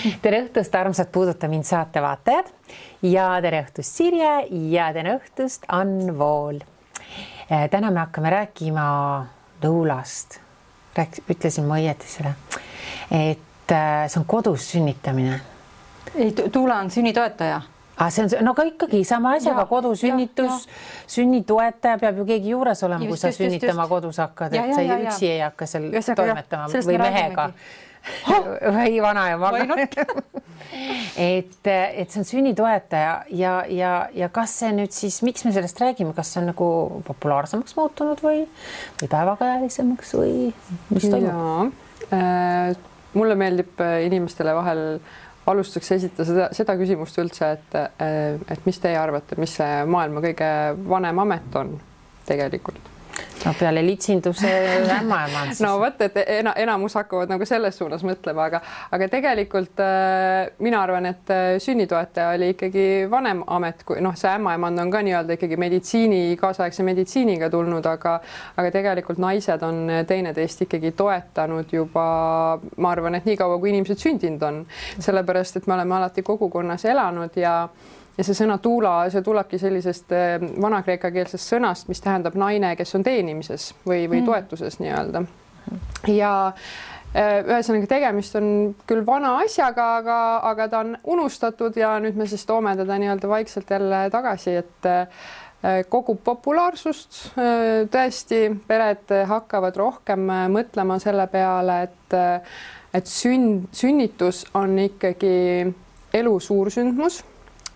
Tere õhtust, armsad Puuduta mind saate vaatajad ja tere õhtust Sirje ja tere õhtust Ann Vool. Täna me hakkame rääkima Tuulast. Ütlesin ma õieti seda, et see on kodus sünnitamine. Ei, Tuula on sünnitoetaja. See on no ka ikkagi sama asjaga kodusünnitus, sünnitoetaja peab ju keegi juures olema, kui sa sünnitama kodus hakkad, et sa üksi ei hakka seal toimetama või mehega. Või vana ja maga. Et see on sünnitoetaja ja kas see nüüd siis, miks me sellest räägime, kas see on nagu populaarsemaks muutunud või päevakajalisemaks või mis toimub? Mulle meeldib inimestele vahel alustuseks esitada seda küsimust üldse, et mis teie arvate, mis see maailma kõige vanem amet on tegelikult? No peale litsinduse ämmaeman siis. No võt, et enamus hakkavad nagu selles suunas mõtlema, aga tegelikult mina arvan, et sünnitoetaja oli ikkagi vanem amet, kui see ämmaemand on ka nii-öelda ikkagi kaasaegse meditsiiniga tulnud, aga tegelikult naised on teineteist ikkagi toetanud juba, ma arvan, et nii kaua, kui inimesed sündinud on, sellepärast, et me oleme alati kogukonnas elanud ja see sõna tuula, see tulebki sellisest vana-kreeka keelsest sõnast, mis tähendab naine, kes on teenimises või toetuses nii-öelda. Ja ühesõnaga tegemist on küll vana asjaga, aga ta on unustatud ja nüüd me siis toome teda nii-öelda vaikselt jälle tagasi, et kogub populaarsust. Tõesti, pered hakkavad rohkem mõtlema selle peale, et sünnitus on ikkagi elu suursündmus.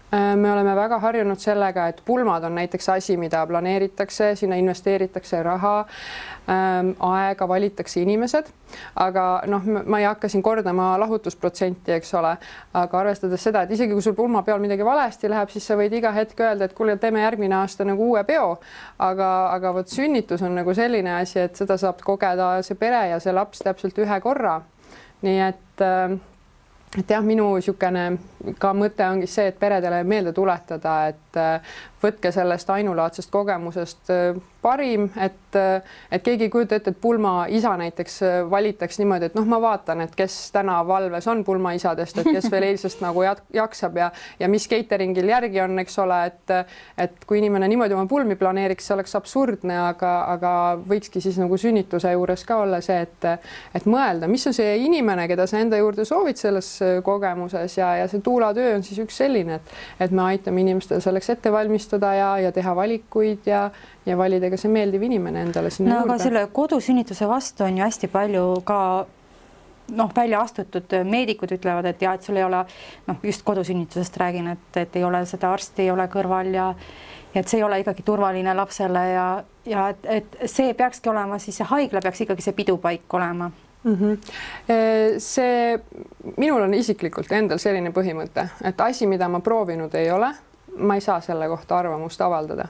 Me oleme väga harjunud sellega, et pulmad on näiteks asi, mida planeeritakse, sinna investeeritakse raha, aega, valitakse inimesed, aga ma ei hakka siin kordama lahutusprotsenti, eks ole, aga arvestades seda, et isegi kui sul pulma peal midagi valesti läheb, siis sa võid iga hetk öelda, et kuule, teeme järgmine aasta nagu uue peo, aga vot sünnitus on nagu selline asi, et seda saab kogeda see pere ja see laps täpselt ühe korra. Nii et jah, minu niisugune ka mõte ongi see, et peredele meelde tuletada, et võtke sellest ainulaadsest kogemusest parim, et keegi ei kujuta ette, et pulmaisa näiteks valitaks niimoodi, et ma vaatan, et kes täna valves on pulmaisadest, et kes veel eilsest nagu jaksab ja mis cateringil järgi on, eks ole, et kui inimene niimoodi oma pulmi planeeriks, see oleks absurdne, aga võikski siis nagu sünnituse juures ka olla see, et mõelda, mis on see inimene, keda sa enda juurde soovid selles kogemuses ja see tuulatöö on siis üks selline, et me aitame inimestel selleks ette valmistada ja teha valikuid ja valida ka see meeldiv inimene endale sinna juurde. Aga selle kodusünnituse vastu on ju hästi palju ka välja astutud. Meedikud ütlevad, et et sul ei ole, just kodusünnitusest räägin, et ei ole seda arsti, ei ole kõrval ja et see ei ole ikkagi turvaline lapsele ja et see peakski olema, siis see haigla peaks ikkagi see pidupaik olema. Minul on isiklikult endal selline põhimõte, et asi, mida ma proovinud ei ole, ma ei saa selle kohta arvamust avaldada.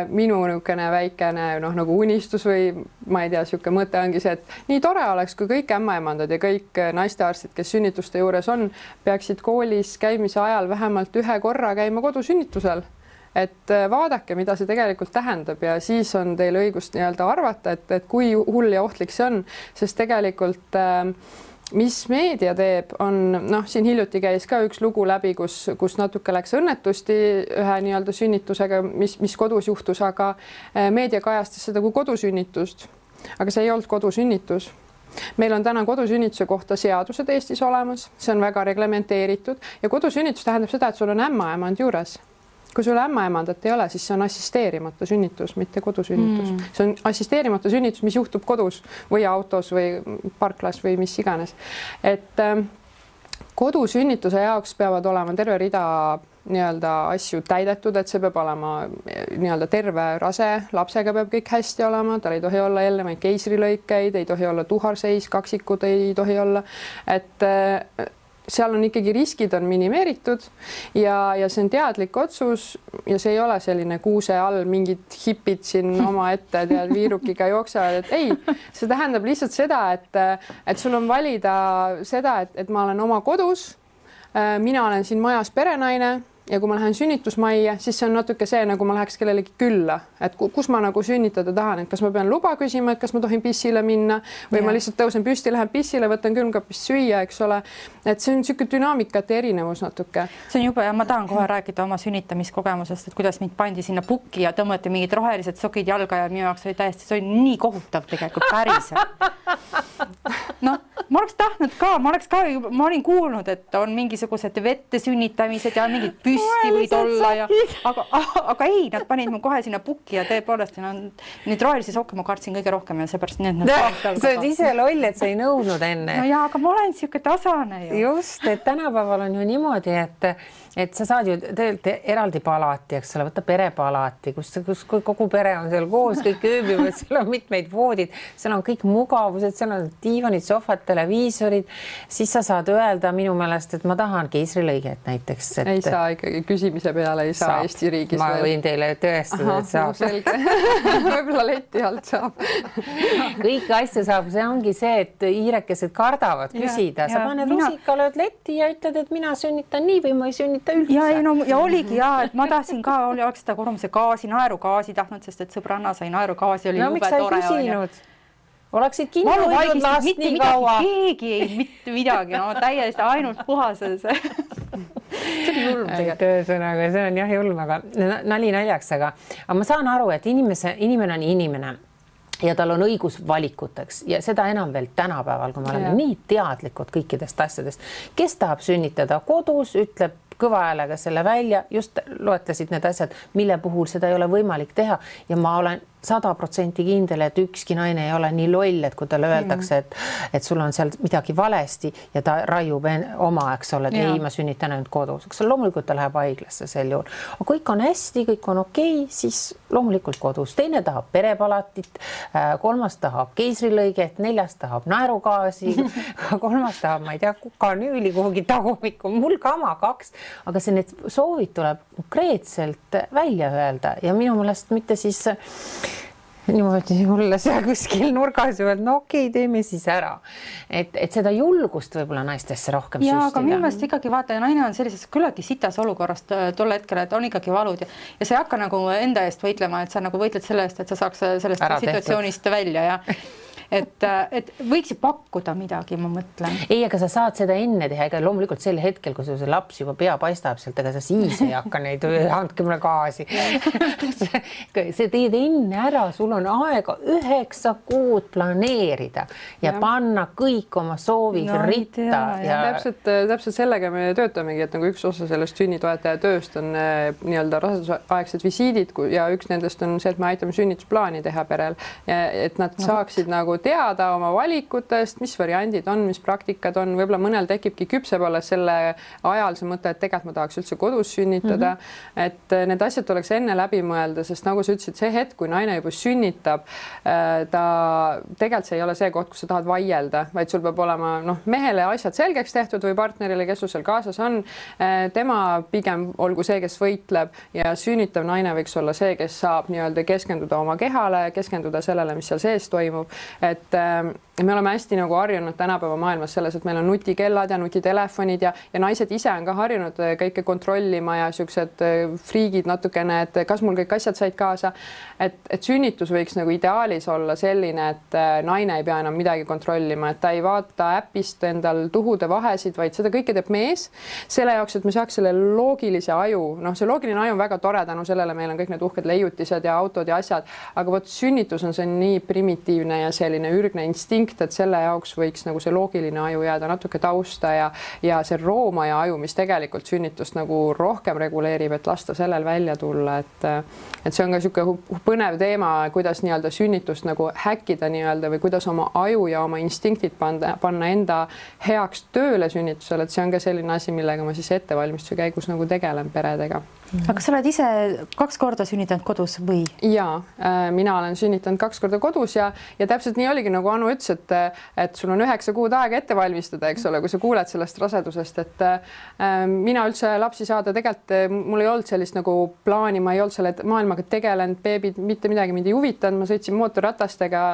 Minu niisugune väikene nagu unistus või ma ei tea, niisugune mõte ongi see, et nii tore oleks, kui kõik ämmaemandad ja kõik naistearstid, kes sünnituste juures on, peaksid koolis käimise ajal vähemalt ühe korra käima kodusünnitusel. Et vaadake, mida see tegelikult tähendab ja siis on teil õigust nii-öelda arvata, et kui hull ja ohtlik see on, sest tegelikult mis meedia teeb, on siin hiljuti käis ka üks lugu läbi, kus natuke läks õnnetusti ühe nii-öelda sünnitusega, mis kodus juhtus, aga meedia kajastas seda kui kodusünnitust. Aga see ei olnud kodusünnitus. Meil on täna kodusünnituse kohta seadused Eestis olemas, see on väga reglementeeritud ja kodusünnitus tähendab seda, et sul on ämmaemand juures. Kui sul ämmaemandat ei ole, siis see on assisteerimata sünnitus, mitte kodusünnitus. See on assisteerimata sünnitus, mis juhtub kodus või autos või parklas või mis iganes. Et kodusünnituse jaoks peavad olema terve rida nii-öelda asju täidetud, et see peab olema nii-öelda terve rase, lapsega peab kõik hästi olema, tal ei tohi olla eelnevaid keisrilõikeid, ei tohi olla tuharseis, kaksikud ei tohi olla, et seal on ikkagi riskid on minimeeritud ja see on teadlik otsus ja see ei ole selline kuuse all mingid hipid siin oma ette tead viirukiga jooksevad, et ei, see tähendab lihtsalt seda, et sul on valida seda, et ma olen oma kodus, mina olen siin majas perenaine, ja kui ma lähen sünnitusmajja, siis see on natuke see, nagu ma läheks kellelegi külla, et kus ma nagu sünnitada tahan, et kas ma pean luba küsima, et kas ma tohin pissile minna või ma lihtsalt tõusen püsti, lähen pissile, võtan külmkapist süüa, eks ole. Et see on niisugune dünaamikate erinevus natuke. See on jube ja ma tahan kohe rääkida oma sünnitamiskogemusest, et kuidas mind pandi sinna pukki ja tõmmati mingid rohelised sokid jalga ja minu jaoks oli täiesti, see oli nii kohutav tegelikult päriselt. No, ma oleks tahtnud ka, ma olin kuulnud, et on mingisugused vette sünnitamised ja mingid püsti võid olla ja aga ei, nad panid mu kohe sinna pukki ja tõepoolest neid rohelisi sokke ma kartsin kõige rohkem ja seepärast need sa oled ise loll, et sa ei nõudnud enne. No jaa, aga ma olen siuke tasane ju. Just, et tänapäeval on ju niimoodi, et sa saad ju tegelikult eraldi palati, eks ole, võtta perepalati, kus kogu pere on seal koos, kõik ööbivad, seal on mitmeid voodid, seal on kõik mugavused, seal on diivanid, sohvad, televiisorid, siis sa saad öelda minu meelest, et ma tahan keisrilõiget näiteks. Ei saa ikkagi küsimise peale, ei saa Eesti riigis. Ma võin teile tõestada, et saab. Selge. Võib-olla leti alt saab. Kõiki asju saab, see ongi see, et hiirekesed kardavad küsida. Sa paned rusika, lööd letti ja ütled, et mina sünnitan nii või ma ei sünnita üldse. Ja oligi et ma tahtsin ka, oleks seda korrumuse gaasi, naerugaasi tahtnud, sest et sõbranna sai naerugaasi, oli jube tore. Oleksid kinni hoidnud last nii kaua. Keegi ei mitte midagi, no täiesti ainult puhases. See oli julm tegelikult. Tõesõnaga, see on jah julm, aga nali naljaks, aga ma saan aru, et inimene on inimene ja tal on õigus valikuteks ja seda enam veel tänapäeval, kui me oleme nii teadlikud kõikidest asjadest. Kes tahab sünnitada kodus, ütleb kõva häälega selle välja, just loetlesid need asjad, mille puhul seda ei ole võimalik teha ja ma olen 100% kindel, et ükski naine ei ole nii loll, et kui talle öeldakse, et sul on seal midagi valesti ja ta raiub oma, eks ole, et ei, ma sünnitan ainult kodus. Loomulikult ta läheb haiglasse sel juhul. Aga kõik on hästi, kõik on okei, siis loomulikult kodus. Teine tahab perepalatit, kolmas tahab keisrilõiget, neljas tahab naerugaasi, kolmas tahab, ma ei tea, kukanüüli kuhugi tagumikku, mul kama 2, aga see need soovid tuleb konkreetselt välja öelda ja minu meelest mitte siis niimoodi mulle seal kuskil nurgas ju, et no okei, teeme siis ära. Et seda julgust võib-olla naistesse rohkem süstida. Aga minu meelest ikkagi vaata, naine on sellises küllaltki sitas olukorrast tol hetkel, et on ikkagi valud ja sa ei hakka nagu enda eest võitlema, et sa nagu võitled selle eest, et sa saaks sellest situatsioonist välja ja et võiks ju pakkuda midagi, ma mõtlen. Ei, aga sa saad seda enne teha, ega loomulikult sel hetkel, kui see laps juba pea paistab sealt, ega sa siis ei hakka neid, andke mulle gaasi. See teed enne ära, sul on aega 9 kuud planeerida ja panna kõik oma soovid ritta. Täpselt sellega me töötamegi, et nagu üks osa sellest sünnitoetaja tööst on nii-öelda rasedusaegsed visiidid ja üks nendest on see, et me aitame sünnitusplaani teha perel, et nad saaksid nagu teada oma valikutest, mis variandid on, mis praktikad on, võib-olla mõnel tekibki küpseb alles selle ajal see mõte, et tegelikult ma tahaks üldse kodus sünnitada, et need asjad oleks enne läbi mõelda, sest nagu sa ütlesid, see hetk, kui naine juba sünnitab, ta tegelikult see ei ole see koht, kus sa tahad vaielda, vaid sul peab olema mehele asjad selgeks tehtud või partnerile, kes sul seal kaasas on, tema pigem olgu see, kes võitleb ja sünnitav naine võiks olla see, kes saab nii-öelda keskenduda oma kehale, keskenduda sellele, mis seal sees toimub. Et me oleme hästi nagu harjunud tänapäeva maailmas selles, et meil on nutikellad ja nutitelefonid ja naised ise on ka harjunud kõike kontrollima ja siuksed friigid natukene, et kas mul kõik asjad said kaasa. Et sünnitus võiks nagu ideaalis olla selline, et naine ei pea enam midagi kontrollima, et ta ei vaata äpist endal tuhude vahesid, vaid seda kõike teeb mees. Selle jaoks, et me saaks selle loogilise aju, see loogiline aju on väga tore, tänu sellele meil on kõik need uhked leiutised ja autod ja asjad, aga vot sünnitus on see nii primitiivne ja selline ürgne instinkt, et selle jaoks võiks nagu see loogiline aju jääda natuke tausta ja see roomaja aju, mis tegelikult sünnitust nagu rohkem reguleerib, et lasta sellel välja tulla, et see on ka niisugune põnev teema, kuidas nii-öelda sünnitust nagu häkkida nii-öelda või kuidas oma aju ja oma instinktid panna enda heaks tööle sünnitusel, et see on ka selline asi, millega ma siis ettevalmistuse käigus nagu tegelen peredega. Aga sa oled ise 2 korda sünnitanud kodus või? Jaa, mina olen sünnitanud 2 korda kodus ja täpselt nii oligi, nagu Anu ütles, et sul on 9 kuud aega ette valmistada, eks ole, kui sa kuuled sellest rasedusest, et mina üldse lapsi saada tegelikult, mul ei olnud sellist nagu plaani, ma ei olnud selle maailmaga tegelenud, beebid, mitte midagi mind ei huvitanud, ma sõitsin mootorratastega,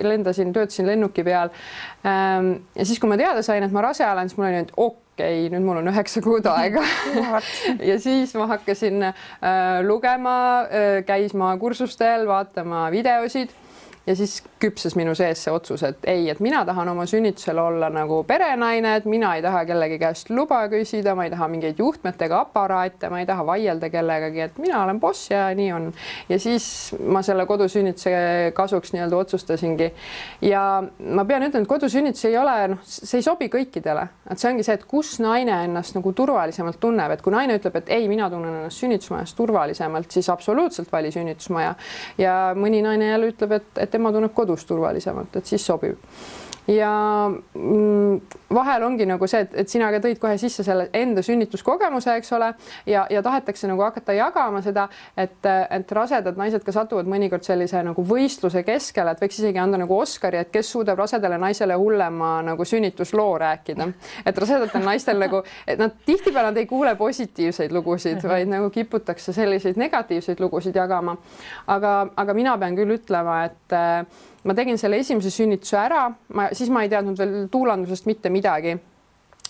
lendasin, töötasin lennuki peal. Ja siis, kui ma teada sain, et ma rase olen, siis mul oli nüüd okei, nüüd mul on 9 kuud aega. Ja siis ma hakkasin lugema, käisma kursustel, vaatama videosid. Ja siis küpses minu sees see otsus, et ei, et mina tahan oma sünnitusel olla nagu perenaine, et mina ei taha kellegi käest luba küsida, ma ei taha mingeid juhtmetega aparaate, ma ei taha vaielda kellegagi, et mina olen boss ja nii on. Ja siis ma selle kodusünnituse kasuks nii-öelda otsustasingi. Ja ma pean ütlema, et kodusünnitus ei ole, see ei sobi kõikidele. Et see ongi see, et kus naine ennast nagu turvalisemalt tunneb, et kui naine ütleb, et ei, mina tunnen ennast sünnitusmajas turvalisemalt, siis absoluutselt vali sünnitusmaja. Ja mõni naine jälle ütleb, et tema tunneb kodus turvalisemalt, et siis sobib. Ja vahel ongi nagu see, et sina ka tõid kohe sisse selle enda sünnituskogemuse, eks ole, ja tahetakse nagu hakata jagama seda, et rasedad naised ka satuvad mõnikord sellise nagu võistluse keskele, et võiks isegi anda nagu Oscari, et kes suudab rasedale naisele hullema nagu sünnitusloo rääkida. Et rasedatel naistel nagu, et nad tihtipeale nad ei kuule positiivseid lugusid, vaid nagu kiputakse selliseid negatiivseid lugusid jagama. Aga mina pean küll ütlema, et ma tegin selle esimese sünnituse ära, siis ma ei teadnud veel tuulandusest mitte midagi.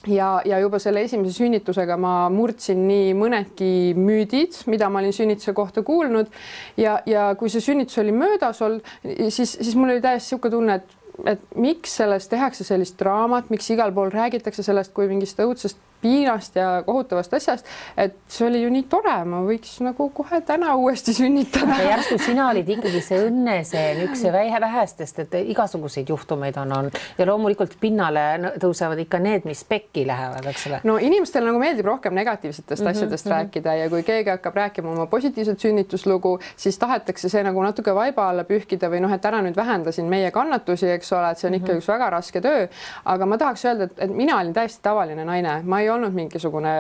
Ja juba selle esimese sünnitusega ma murdsin nii mõnedki müüdid, mida ma olin sünnituse kohta kuulnud. Ja kui see sünnitus oli möödas olnud, siis mul oli täiesti siuke tunne, et miks sellest tehakse sellist draamat, miks igal pool räägitakse sellest kui mingist õudsest piinast ja kohutavast asjast, et see oli ju nii tore, ma võiks nagu kohe täna uuesti sünnitada. Ja järsku sina olid ikkagi see õnneseen, üks vähestest, et igasuguseid juhtumeid on. Ja loomulikult pinnale tõusevad ikka need, mis pekki lähevad, eks ole. No inimestel nagu meeldib rohkem negatiivsetest asjadest rääkida ja kui keegi hakkab rääkima oma positiivset sünnituslugu, siis tahetakse see nagu natuke vaiba alla pühkida või noh, et ära nüüd vähendasin meie kannatusi, eks ole, et see on ikka üks väga raske töö. Aga ma tahaks öelda, et mina olin täiesti tavaline naine. Ma ei olnud mingisugune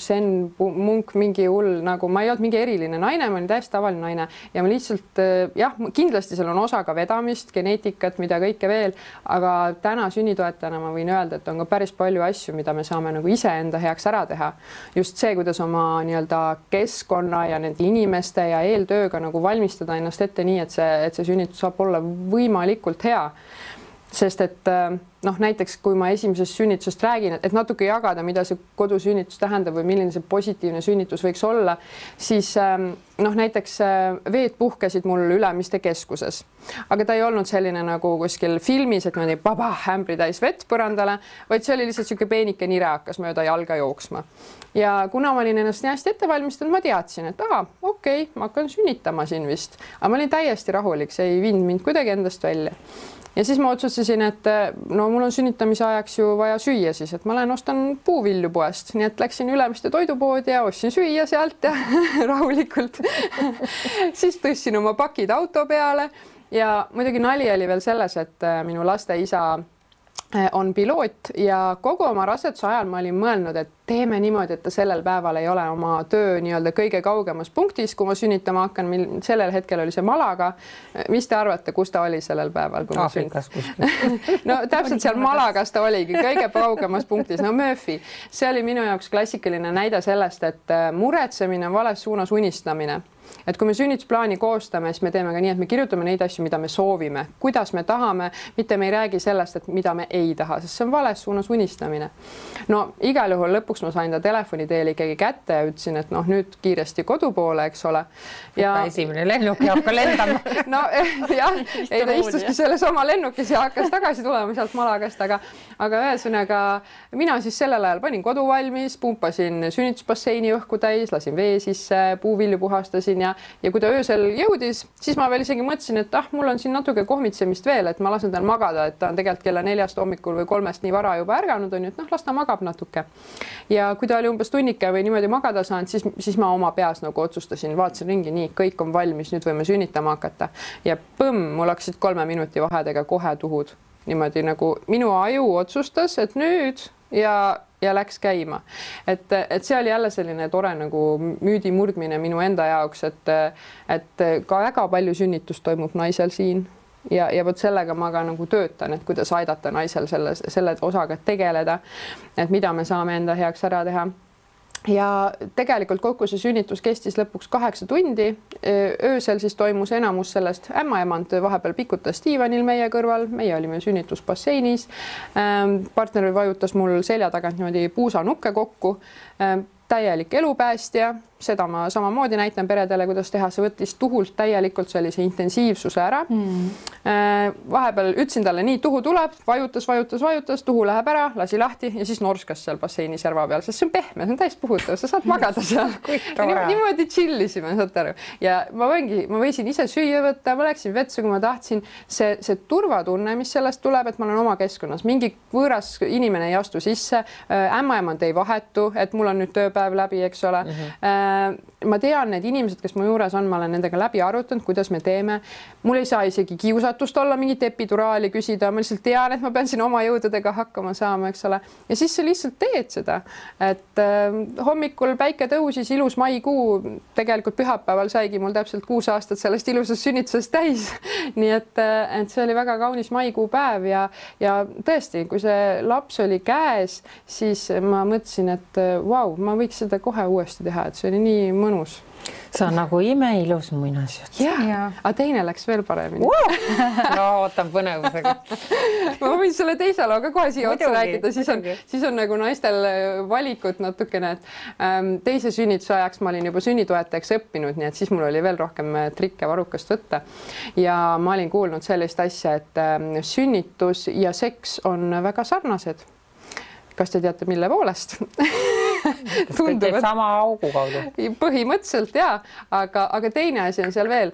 sen munk, mingi hull, nagu ma ei olnud mingi eriline naine, ma olin täiesti tavaline naine ja ma lihtsalt jah, kindlasti seal on osa ka vedamist, geneetikat, mida kõike veel, aga täna sünnitoetajana ma võin öelda, et on ka päris palju asju, mida me saame nagu iseenda heaks ära teha. Just see, kuidas oma nii-öelda keskkonna ja nende inimeste ja eeltööga nagu valmistada ennast ette nii, et see sünnitus saab olla võimalikult hea. Sest et noh, näiteks kui ma esimesest sünnitusest räägin, et natuke jagada, mida see kodusünnitus tähendab või milline see positiivne sünnitus võiks olla, siis noh, näiteks veed puhkesid mul Ülemiste keskuses, aga ta ei olnud selline nagu kuskil filmis, et niimoodi baba ämbri täis vett põrandale, vaid see oli lihtsalt siuke peenike nire hakkas mööda jalga jooksma. Ja kuna ma olin ennast nii hästi ette valmistanud, ma teadsin, et okei, ma hakkan sünnitama siin vist, aga ma olin täiesti rahulik, see ei viinud mind kuidagi endast välja. Ja siis ma otsustasin, et no mul on sünnitamise ajaks ju vaja süüa siis, et ma lähen ostan puuvilju poest, nii et läksin Ülemiste toidupoodi ja ostsin süüa sealt ja rahulikult. Siis tõstsin oma pakid auto peale ja muidugi nali oli veel selles, et minu laste isa on piloot ja kogu oma raseduse ajal ma olin mõelnud, et teeme niimoodi, et ta sellel päeval ei ole oma töö nii-öelda kõige kaugemas punktis, kui ma sünnitama hakkan, sellel hetkel oli see Malaga. Mis te arvate, kus ta oli sellel päeval? Aafrikas kuskil. No täpselt seal Malagas ta oligi, kõige kaugemas punktis. No Murphy, see oli minu jaoks klassikaline näide sellest, et muretsemine on vales suunas unistamine. Et kui me sünnitusplaani koostame, siis me teeme ka nii, et me kirjutame neid asju, mida me soovime, kuidas me tahame, mitte me ei räägi sellest, et mida me ei taha, sest see on vales suunas unistamine. No igal juhul lõpuks ma sain ta telefoni teel ikkagi kätte ja ütlesin, et noh, nüüd kiiresti kodu poole, eks ole. Ja esimene lennuk ja hakka lendama. No jah, ei ta istuski selles oma lennukis ja hakkas tagasi tulema sealt Malagast, aga ühesõnaga mina siis sellel ajal panin kodu valmis, pumpasin sünnitusbasseini õhku täis, lasin vee sisse, puuvilju puhastasin ja kui ta öösel jõudis, siis ma veel isegi mõtlesin, et mul on siin natuke kohmitsemist veel, et ma lasen tal magada, et ta on tegelikult kella 4 hommikul või 3 nii vara juba ärganud on, et noh, las ta magab natuke. Ja kui ta oli umbes tunnike või niimoodi magada saanud, siis ma oma peas nagu otsustasin, vaatasin ringi, nii, kõik on valmis, nüüd võime sünnitama hakata. Ja põmm, mul hakkasid 3 minuti vahedega kohe tuhud. Niimoodi nagu minu aju otsustas, et nüüd ja läks käima. Et see oli jälle selline tore nagu müüdi murdmine minu enda jaoks, et ka väga palju sünnitust toimub naisel siin ja võt sellega ma ka nagu töötan, et kuidas aidata naisel selle osaga tegeleda, et mida me saame enda heaks ära teha. ja tegelikult kokku see sünnitus kestis lõpuks 8 tundi. Öösel siis toimus enamus sellest, ämmaemand vahepeal pikutas diivanil meie kõrval, meie olime sünnitusbasseinis. Partner vajutas mul selja tagant niimoodi puusanukke kokku. Täielik elupäästja, seda ma samamoodi näitan peredele, kuidas teha, see võttis tuhult täielikult sellise intensiivsuse ära. Vahepeal ütlesin talle, nii tuhu tuleb, vajutas, tuhu läheb ära, lasi lahti ja siis norskas seal basseini serva peal, sest see on pehme, see on täis puhutav, sa saad magada seal. Niimoodi chillisime, saate aru. Ja ma võisin ise süüa võtta, ma läksin vetsu, kui ma tahtsin. See turvatunne, mis sellest tuleb, et ma olen oma keskkonnas, mingi võõras inimene ei astu sisse, ämmaemand ei vahetu, et mul on nüüd tööpäev läbi, eks ole. Ma tean, need inimesed, kes mu juures on, ma olen nendega läbi arutanud, kuidas me teeme. Mul ei saa isegi kiusatust olla mingit epiduraali küsida, ma lihtsalt tean, et ma pean siin oma jõududega hakkama saama, eks ole. Ja siis sa lihtsalt teed seda, et hommikul päike tõusis, ilus maikuu, tegelikult pühapäeval saigi mul täpselt 6 aastat sellest ilusast sünnitusest täis. Nii et see oli väga kaunis maikuu päev ja tõesti, kui see laps oli käes, siis ma mõtlesin, et vau, ma võiks seda kohe uuesti teha, et see oli nii mõnus. See on nagu imeilus muinasjutt. Aga teine läks veel paremini. No ootan põnevusega. Ma võin selle teise looga kohe siia otsa rääkida, siis on nagu naistel valikut natukene, et teise sünnituse ajaks ma olin juba sünnitoetajaks õppinud, nii et siis mul oli veel rohkem trikke varukast võtta. Ja ma olin kuulnud sellist asja, et sünnitus ja seks on väga sarnased. Kas te teate, mille poolest? Tunduvad sama augu kaudu. Põhimõtteliselt jaa, aga teine asi on seal veel.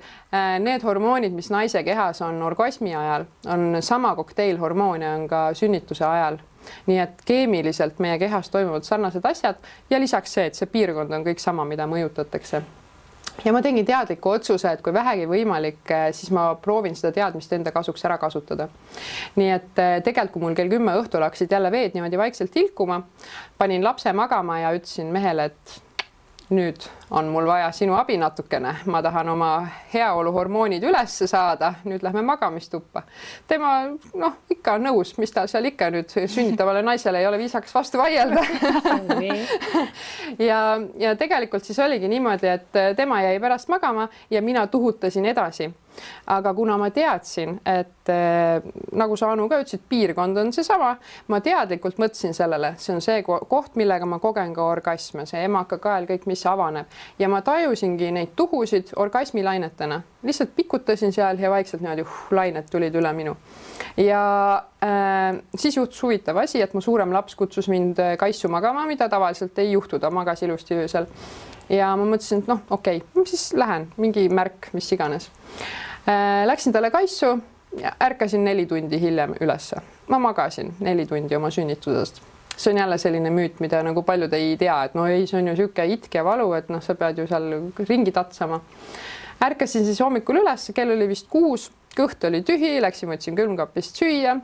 Need hormoonid, mis naise kehas on orgasmi ajal, on sama kokteilhormoone on ka sünnituse ajal. Nii et keemiliselt meie kehas toimuvad sarnased asjad ja lisaks see, et see piirkond on kõik sama, mida mõjutatakse. Ja ma tegin teadliku otsuse, et kui vähegi võimalik, siis ma proovin seda teadmist enda kasuks ära kasutada. Nii et tegelikult, kui mul kell 10 õhtul hakkasid jälle veed niimoodi vaikselt tilkuma, panin lapse magama ja ütlesin mehele, et nüüd on mul vaja sinu abi natukene. Ma tahan oma heaoluhormoonid üles saada. Nüüd lähme magamistuppa. Tema ikka on nõus, mis ta seal ikka nüüd sünnitavale naisele ei ole viisaks vastu vaielda. ja tegelikult siis oligi niimoodi, et tema jäi pärast magama ja mina tuhutasin edasi. Aga kuna ma teadsin, et nagu sa Anu ka ütlesid, piirkond on see sama, ma teadlikult mõtlesin sellele, see on see koht, millega ma kogen ka orgasme, see emakakael, kõik, mis avaneb. Ja ma tajusingi neid tuhusid orgasmilainetena. Lihtsalt pikutasin seal ja vaikselt niimoodi lainet tulid üle minu. Ja siis juhtus huvitav asi, et mu suurem laps kutsus mind kaissu magama, mida tavaliselt ei juhtu, ta magas ilusti öösel. Ja ma mõtlesin, et okei, siis lähen, mingi märk, mis iganes. Läksin talle kaissu ja ärkasin 4 tundi hiljem ülesse. Ma magasin 4 tundi oma sünnitusest. See on jälle selline müüt, mida nagu paljud ei tea, et see on ju siuke itk ja valu, et sa pead ju seal ringi tatsama. Ärkasin siis hommikul üles, kell oli vist 6, kõht oli tühi, läksin võtsin külmkapist süüa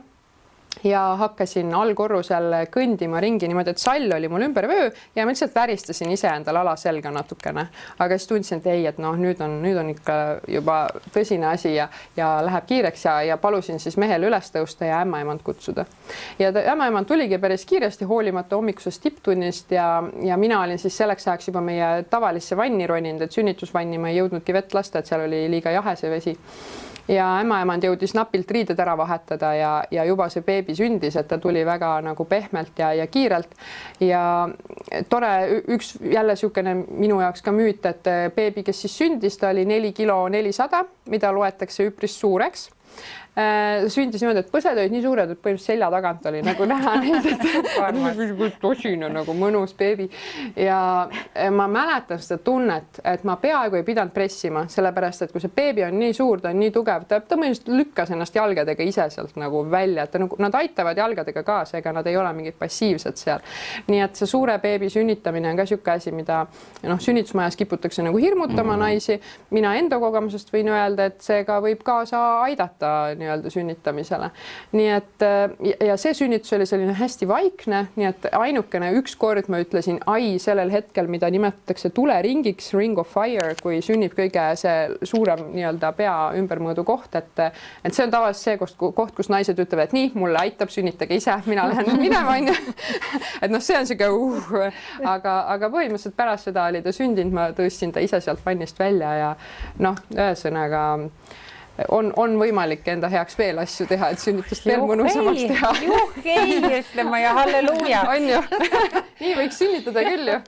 ja hakkasin allkorrusel kõndima ringi niimoodi, et sall oli mul ümber vöö ja ma lihtsalt väristasin ise endal alaselga natukene. Aga siis tundsin, et ei, et nüüd on ikka juba tõsine asi ja läheb kiireks ja palusin siis mehel üles tõusta ja ämmaemand kutsuda. Ja ämmaemand tuligi päris kiiresti hoolimata hommikusest tipptunnist ja mina olin siis selleks ajaks juba meie tavalisse vanni roninud, et sünnitusvanni ma ei jõudnudki vett lasta, et seal oli liiga jahe see vesi. Ja ämmaemand jõudis napilt riided ära vahetada ja juba see beebi sündis, et ta tuli väga nagu pehmelt ja kiirelt. Ja tore, üks jälle niisugune minu jaoks ka müüt, et beebi, kes siis sündis, ta oli 4 kilo 400, mida loetakse üpris suureks. Sündis niimoodi, et põsed olid nii suured, et põhimõtteliselt selja tagant oli nagu näha neid, et tosine nagu mõnus beebi. Ja ma mäletan seda tunnet, et ma peaaegu ei pidanud pressima, sellepärast, et kui see beebi on nii suur, ta on nii tugev, ta põhimõtteliselt lükkas ennast jalgadega ise sealt nagu välja, et nad aitavad jalgadega kaasa, ega nad ei ole mingid passiivsed seal. Nii et see suure beebi sünnitamine on ka siuke asi, mida sünnitusmajas kiputakse nagu hirmutama naisi. Mina enda kogemusest võin öelda, et see ka võib kaasa aidata nii-öelda sünnitamisele. Nii et ja see sünnitus oli selline hästi vaikne, nii et ainukene ükskord ma ütlesin ai sellel hetkel, mida nimetatakse tuleringiks, ring of fire, kui sünnib kõige see suurem nii-öelda pea ümbermõõdu koht, et see on tavaliselt see koht, kus naised ütlevad, et nii, mulle aitab, sünnitage ise, mina lähen minema, on ju. Et noh, see on siuke aga põhimõtteliselt pärast seda oli ta sündinud, ma tõstsin ta ise sealt vannist välja ja noh, ühesõnaga on võimalik enda heaks veel asju teha, et sünnitust veel mõnusamaks teha. Juhkei, ütlema ja halleluuja. On ju. Nii võiks sünnitada küll ju.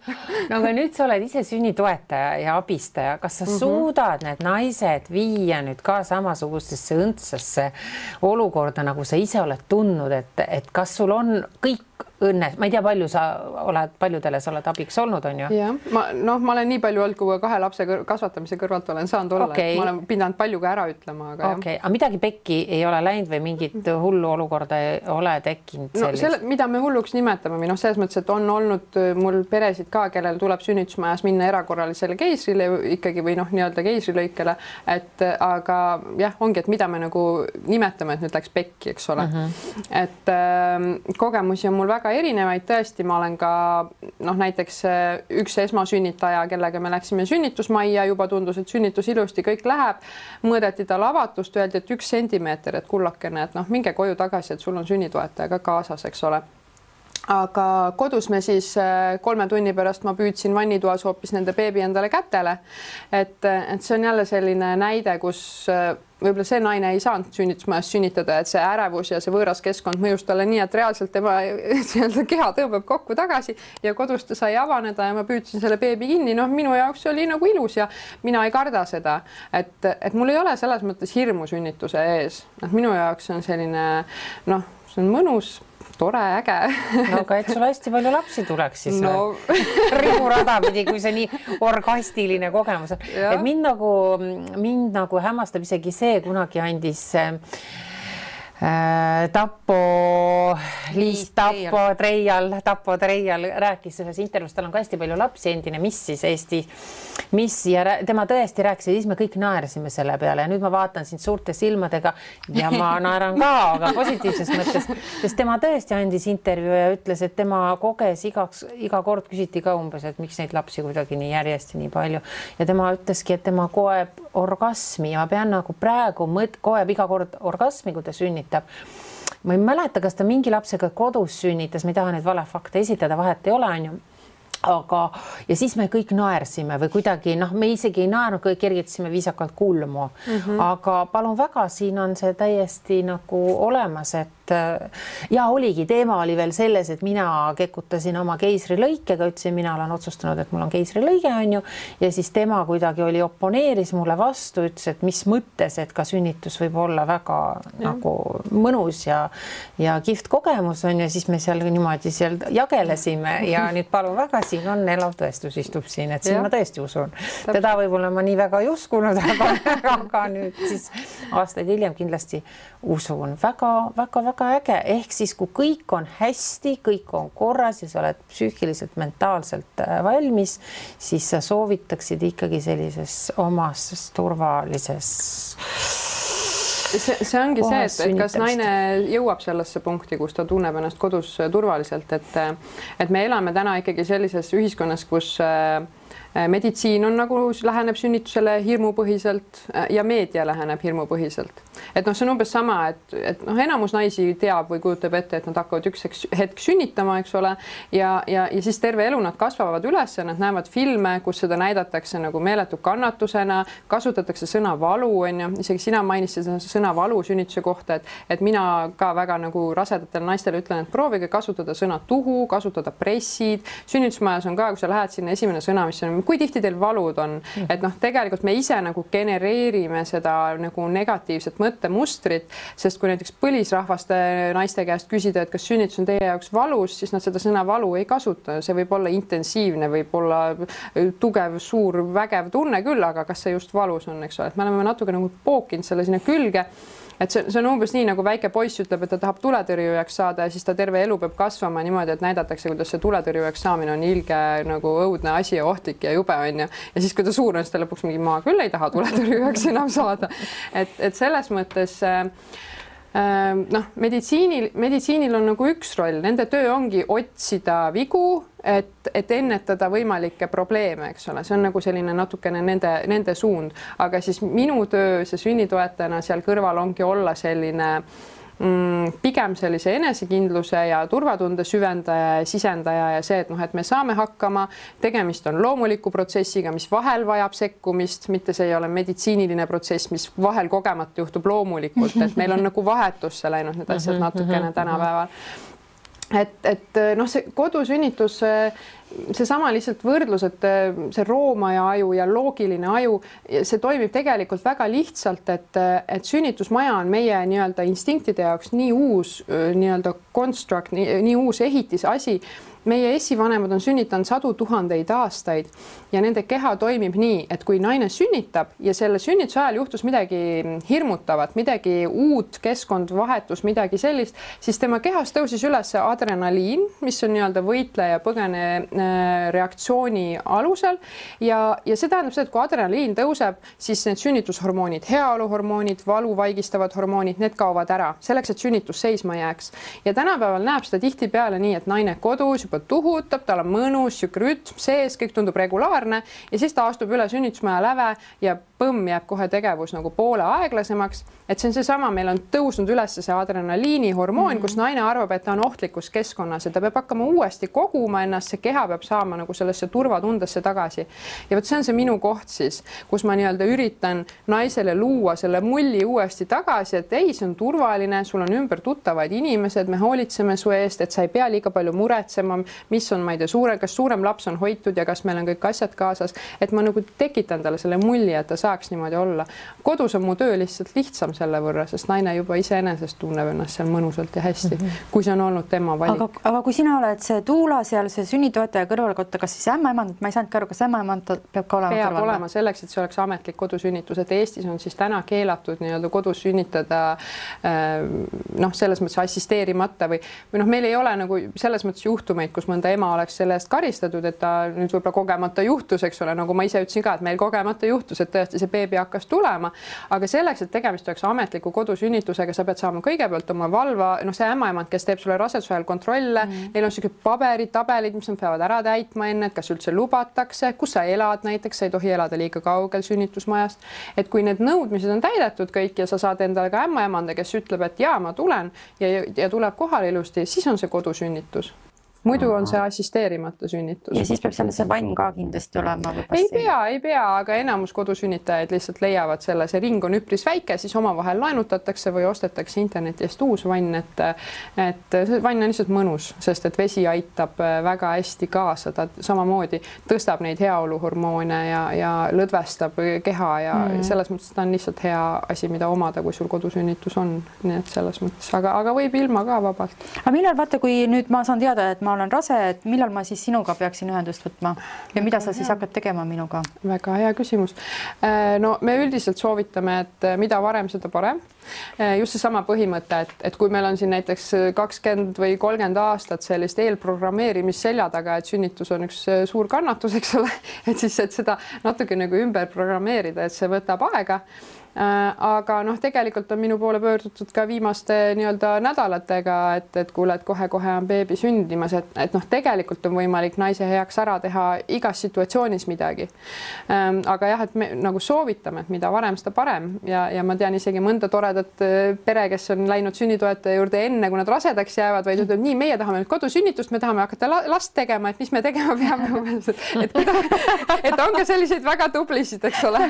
No aga nüüd sa oled ise sünnitoetaja ja abistaja. Kas sa suudad need naised viia nüüd ka samasugustesse õndsasse olukorda, nagu sa ise oled tundnud, et kas sul on kõik õnne, ma ei tea, paljudele sa oled abiks olnud, on ju? Jah, ma olen nii palju olnud, kui 2 lapse kasvatamise kõrvalt olen saanud olla, et ma olen pidanud palju ka ära ütlema. Aga midagi pekki ei ole läinud või mingit hullu olukorda ei ole tekkinud sellist? Mida me hulluks nimetame, või selles mõttes, et on olnud mul peresid ka, kellel tuleb sünnitusmajas minna erakorralisele keisrile ikkagi või nii-öelda keisrilõikele, aga jah, ongi, et mida me nagu nimetame, et nüüd läks pekki, eks ole. Et kogemusi on mul väga erinevaid, tõesti, ma olen ka näiteks üks esmasünnitaja, kellega me läksime sünnitusmajja, juba tundus, et sünnitus ilusti kõik läheb, mõõdeti tal avatust, öeldi, et 1 sentimeeter, et kullakene, et minge koju tagasi, et sul on sünnitoetaja ka kaasas, eks ole. Aga kodus me siis 3 tunni pärast ma püüdsin vannitoas hoopis nende beebi endale kätele, et see on jälle selline näide, kus võib-olla see naine ei saanud sünnitusmajas sünnitada, et see ärevus ja see võõras keskkond mõjus talle nii, et reaalselt tema keha tõmbab kokku tagasi ja kodus ta sai avaneda ja ma püüdsin selle beebi kinni. Minu jaoks oli nagu ilus ja mina ei karda seda, et mul ei ole selles mõttes hirmu sünnituse ees. Minu jaoks on selline, see on mõnus, tore, äge. Aga et sul hästi palju lapsi tuleks siis riburada pidi, kui see nii orgastiline kogemus on. Et mind nagu hämmastab isegi see, kunagi andis Tappo Treial rääkis ühes intervjuus, tal on ka hästi palju lapsi, endine missis Eesti missi ja tema tõesti rääkis ja siis me kõik naersime selle peale ja nüüd ma vaatan sind suurte silmadega ja ma naeran ka, aga positiivses mõttes, sest tema tõesti andis intervjuu ja ütles, et tema koges iga kord küsiti ka umbes, et miks neid lapsi kuidagi nii järjest nii palju ja tema ütleski, et tema koeb orgasmi ja ma pean nagu praegu koeb iga kord orgasmi, kui ta sünnitab. Ma ei mäleta, kas ta mingi lapsega kodus sünnitas, ma ei taha neid valefakte esitada, vahet ei ole, on ju. Aga ja siis me kõik naersime või kuidagi, me isegi ei naernud, kõik kergitasime viisakalt kulmu. Aga palun väga, siin on see täiesti nagu olemas, et ja oligi, teema oli veel selles, et mina kekutasin oma keisrilõikega, ütlesin, mina olen otsustanud, et mul on keisrilõige, on ju, ja siis tema kuidagi oponeeris mulle vastu, ütles, et mis mõttes, et ka sünnitus võib olla väga nagu mõnus ja kihvt kogemus on ja siis me seal niimoodi seal jagelesime ja nüüd palun väga, siin on elav tõestus istub siin, et siin ma tõesti usun. Teda võib-olla ma nii väga ei uskunud, aga nüüd siis aastaid hiljem kindlasti usun. Väga äge, ehk siis kui kõik on hästi, kõik on korras ja sa oled psüühiliselt, mentaalselt valmis, siis sa soovitaksid ikkagi sellises omas turvalises see ongi see, et kas naine jõuab sellesse punkti, kus ta tunneb ennast kodus turvaliselt, et me elame täna ikkagi sellises ühiskonnas, kus meditsiin on nagu läheneb sünnitusele hirmupõhiselt ja meedia läheneb hirmupõhiselt. Et see on umbes sama, et enamus naisi teab või kujutab ette, et nad hakkavad üks hetk sünnitama, eks ole, ja siis terve elu nad kasvavad üles ja nad näevad filme, kus seda näidatakse nagu meeletu kannatusena, kasutatakse sõna valu, on ju, isegi sina mainisid sõna valu sünnituse kohta, et mina ka väga nagu rasedatele naistele ütlen, et proovige kasutada sõna tuhu, kasutada pressid, sünnitusmajas on ka, kui sa lähed sinna, esimene sõna, mis on, kui tihti teil valud on, et tegelikult me ise nagu genereerime seda nagu negatiivset mõttemustrit, sest kui näiteks põlisrahvaste naiste käest küsida, et kas sünnitus on teie jaoks valus, siis nad seda sõna valu ei kasuta. See võib olla intensiivne, võib olla tugev, suur, vägev tunne küll, aga kas see just valus on, eks ole, et me oleme natuke nagu pookinud selle sinna külge et see on umbes nii, nagu väike poiss ütleb, et ta tahab tuletõrjujaks saada ja siis ta terve elu peab kasvama niimoodi, et näidatakse, kuidas see tuletõrjujaks saamine on ilge nagu õudne asi ja ohtlik ja jube on ja siis kui ta suur on, siis ta lõpuks mingi ma küll ei taha tuletõrjujaks enam saada. Et selles mõttes noh, meditsiinil on nagu üks roll, nende töö ongi otsida vigu, et ennetada võimalikke probleeme, eks ole, see on nagu selline natukene nende suund, aga siis minu töö see sünnitoetajana seal kõrval ongi olla selline pigem sellise enesekindluse ja turvatunde süvendaja ja sisendaja ja see, et noh, et me saame hakkama, tegemist on loomuliku protsessiga, mis vahel vajab sekkumist, mitte see ei ole meditsiiniline protsess, mis vahel kogemata juhtub loomulikult, et meil on nagu vahetusse läinud need asjad natukene tänapäeval. Et noh, see kodusünnitus, seesama lihtsalt võrdlus, et see roomaja aju ja loogiline aju, see toimib tegelikult väga lihtsalt, et sünnitusmaja on meie nii-öelda instinktide jaoks nii uus nii-öelda construct, nii uus ehitisasi. Meie esivanemad on sünnitanud 100 000 aastaid ja nende keha toimib nii, et kui naine sünnitab ja selle sünnituse ajal juhtus midagi hirmutavat, midagi uut, keskkond vahetus, midagi sellist, siis tema kehas tõusis üles adrenaliin, mis on nii-öelda võitleja põgene reaktsiooni alusel ja see tähendab seda, et kui adrenaliin tõuseb, siis need sünnitushormoonid, heaoluhormoonid, valu vaigistavad hormoonid, need kaovad ära, selleks, et sünnitus seisma jääks. Ja tänapäeval näeb seda tihtipeale nii, et naine kodus juba tuhutab, tal on mõnus, rütm sees, kõik tundub regulaarne ja siis ta astub üle sünnitusmaja läve ja põmm jääb kohe tegevus nagu poole aeglasemaks. Et see on seesama, meil on tõusnud üles see adrenaliini hormoon, kus naine arvab, et ta on ohtlikus keskkonnas ja ta peab hakkama uuesti koguma ennast, see keha peab saama nagu sellesse turvatundesse tagasi. Ja võt see on see minu koht siis, kus ma nii-öelda üritan naisele luua selle mulli uuesti tagasi, et ei, see on turvaline, sul on ümber tuttavaid inimesed, me hoolitseme su eest, et sa ei pea liiga palju muretsema, mis on, ma ei tea, kas suurem laps on hoitud ja kas meil on kõik asjad kaasas, et ma nagu tekitan talle selle mulli, et ta saaks niimoodi olla. Kodus on mu töö lihtsalt lihtsam selle võrra, sest naine juba iseenesest tunneb ennast seal mõnusalt ja hästi, kui see on olnud tema valik. Aga kui sina oled see tuula seal, see sünnitoetaja kõrvalkotta, kas siis ämmaemand, ma ei saanudki aru, kas ämmaemand peab ka olema kõrval? Peab olema selleks, et see oleks ametlik kodusünnitus, et Eestis on siis täna keelatud nii-öelda kodus sünnitada noh, selles mõttes assisteerimata või noh, meil ei ole nagu selles mõttes juhtumeid, kus mõnda ema oleks selle eest karistatud, et ta nüüd võib-olla kogemata juhtus, eks ole, nagu ma ise ütlesin ka, et meil kogemata juhtus, et tõesti see beebi hakkas tulema, aga selleks, et tegemist oleks ametliku kodusünnitusega, sa pead saama kõigepealt oma valva, noh, see ämmaemand, kes teeb sulle raseduse ajal kontrolle, neil on sellised tabelid, mis nad peavad ära täitma enne, et kas üldse lubatakse, kus sa elad näiteks, sa ei tohi elada liiga kaugel sünnitusmajast, et kui need nõudmised on täidetud kõik ja sa saad endale ka ämmaemanda, kes ütleb, et jaa, ma tulen ja tuleb kohale ilusti, siis on see kodusünnitus. Muidu on see assisteerimata sünnitus. Ja siis peab seal see vann ka kindlasti olema? Ei pea, aga enamus kodusünnitajaid lihtsalt leiavad selle, see ring on üpris väike, siis omavahel laenutatakse või ostetakse interneti eest uus vann, et see vann on lihtsalt mõnus, sest et vesi aitab väga hästi kaasa, ta samamoodi tõstab neid heaoluhormoone ja lõdvestab keha ja selles mõttes ta on lihtsalt hea asi, mida omada, kui sul kodusünnitus on, nii et selles mõttes, aga võib ilma ka vabalt. Aga millal vaata, kui nüüd ma saan teada, et ma olen rase, et millal ma siis sinuga peaksin ühendust võtma ja mida sa siis hakkad tegema minuga? Väga hea küsimus. No me üldiselt soovitame, et mida varem, seda parem. Just seesama põhimõte, et kui meil on siin näiteks 20 või 30 aastat sellist eelprogrammeerimist selja taga, et sünnitus on üks suur kannatus, eks ole, et siis et seda natuke nagu ümber programmeerida, et see võtab aega. Aga noh, tegelikult on minu poole pöördutud ka viimaste nii-öelda nädalatega, et kuule, et kohe-kohe on beebi sündimas, et noh, tegelikult on võimalik naise heaks ära teha igas situatsioonis midagi. Aga jah, et me nagu soovitame, et mida varem, seda parem ja ma tean isegi mõnda toredat pere, kes on läinud sünnitoetaja juurde enne, kui nad rasedaks jäävad, vaid ütleb nii, meie tahame nüüd kodusünnitust, me tahame hakata last tegema, et mis me tegema peame. Et on ka selliseid väga tublisid, eks ole.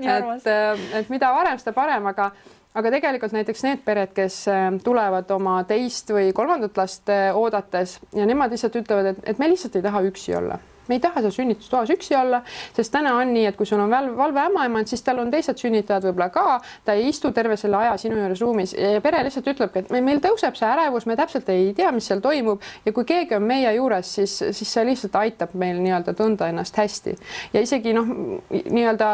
Et mida varem, seda parem, aga tegelikult näiteks need pered, kes tulevad oma teist või kolmandat last oodates ja nemad lihtsalt ütlevad, et me lihtsalt ei taha üksi olla. me ei taha seal sünnitustoas üksi olla, sest täna on nii, et kui sul on valve ämmaemand, siis tal on teised sünnitajad võib-olla ka, ta ei istu terve selle aja sinu juures ruumis ja pere lihtsalt ütlebki, et meil tõuseb see ärevus, me täpselt ei tea, mis seal toimub ja kui keegi on meie juures, siis see lihtsalt aitab meil nii-öelda tunda ennast hästi. Ja isegi nii-öelda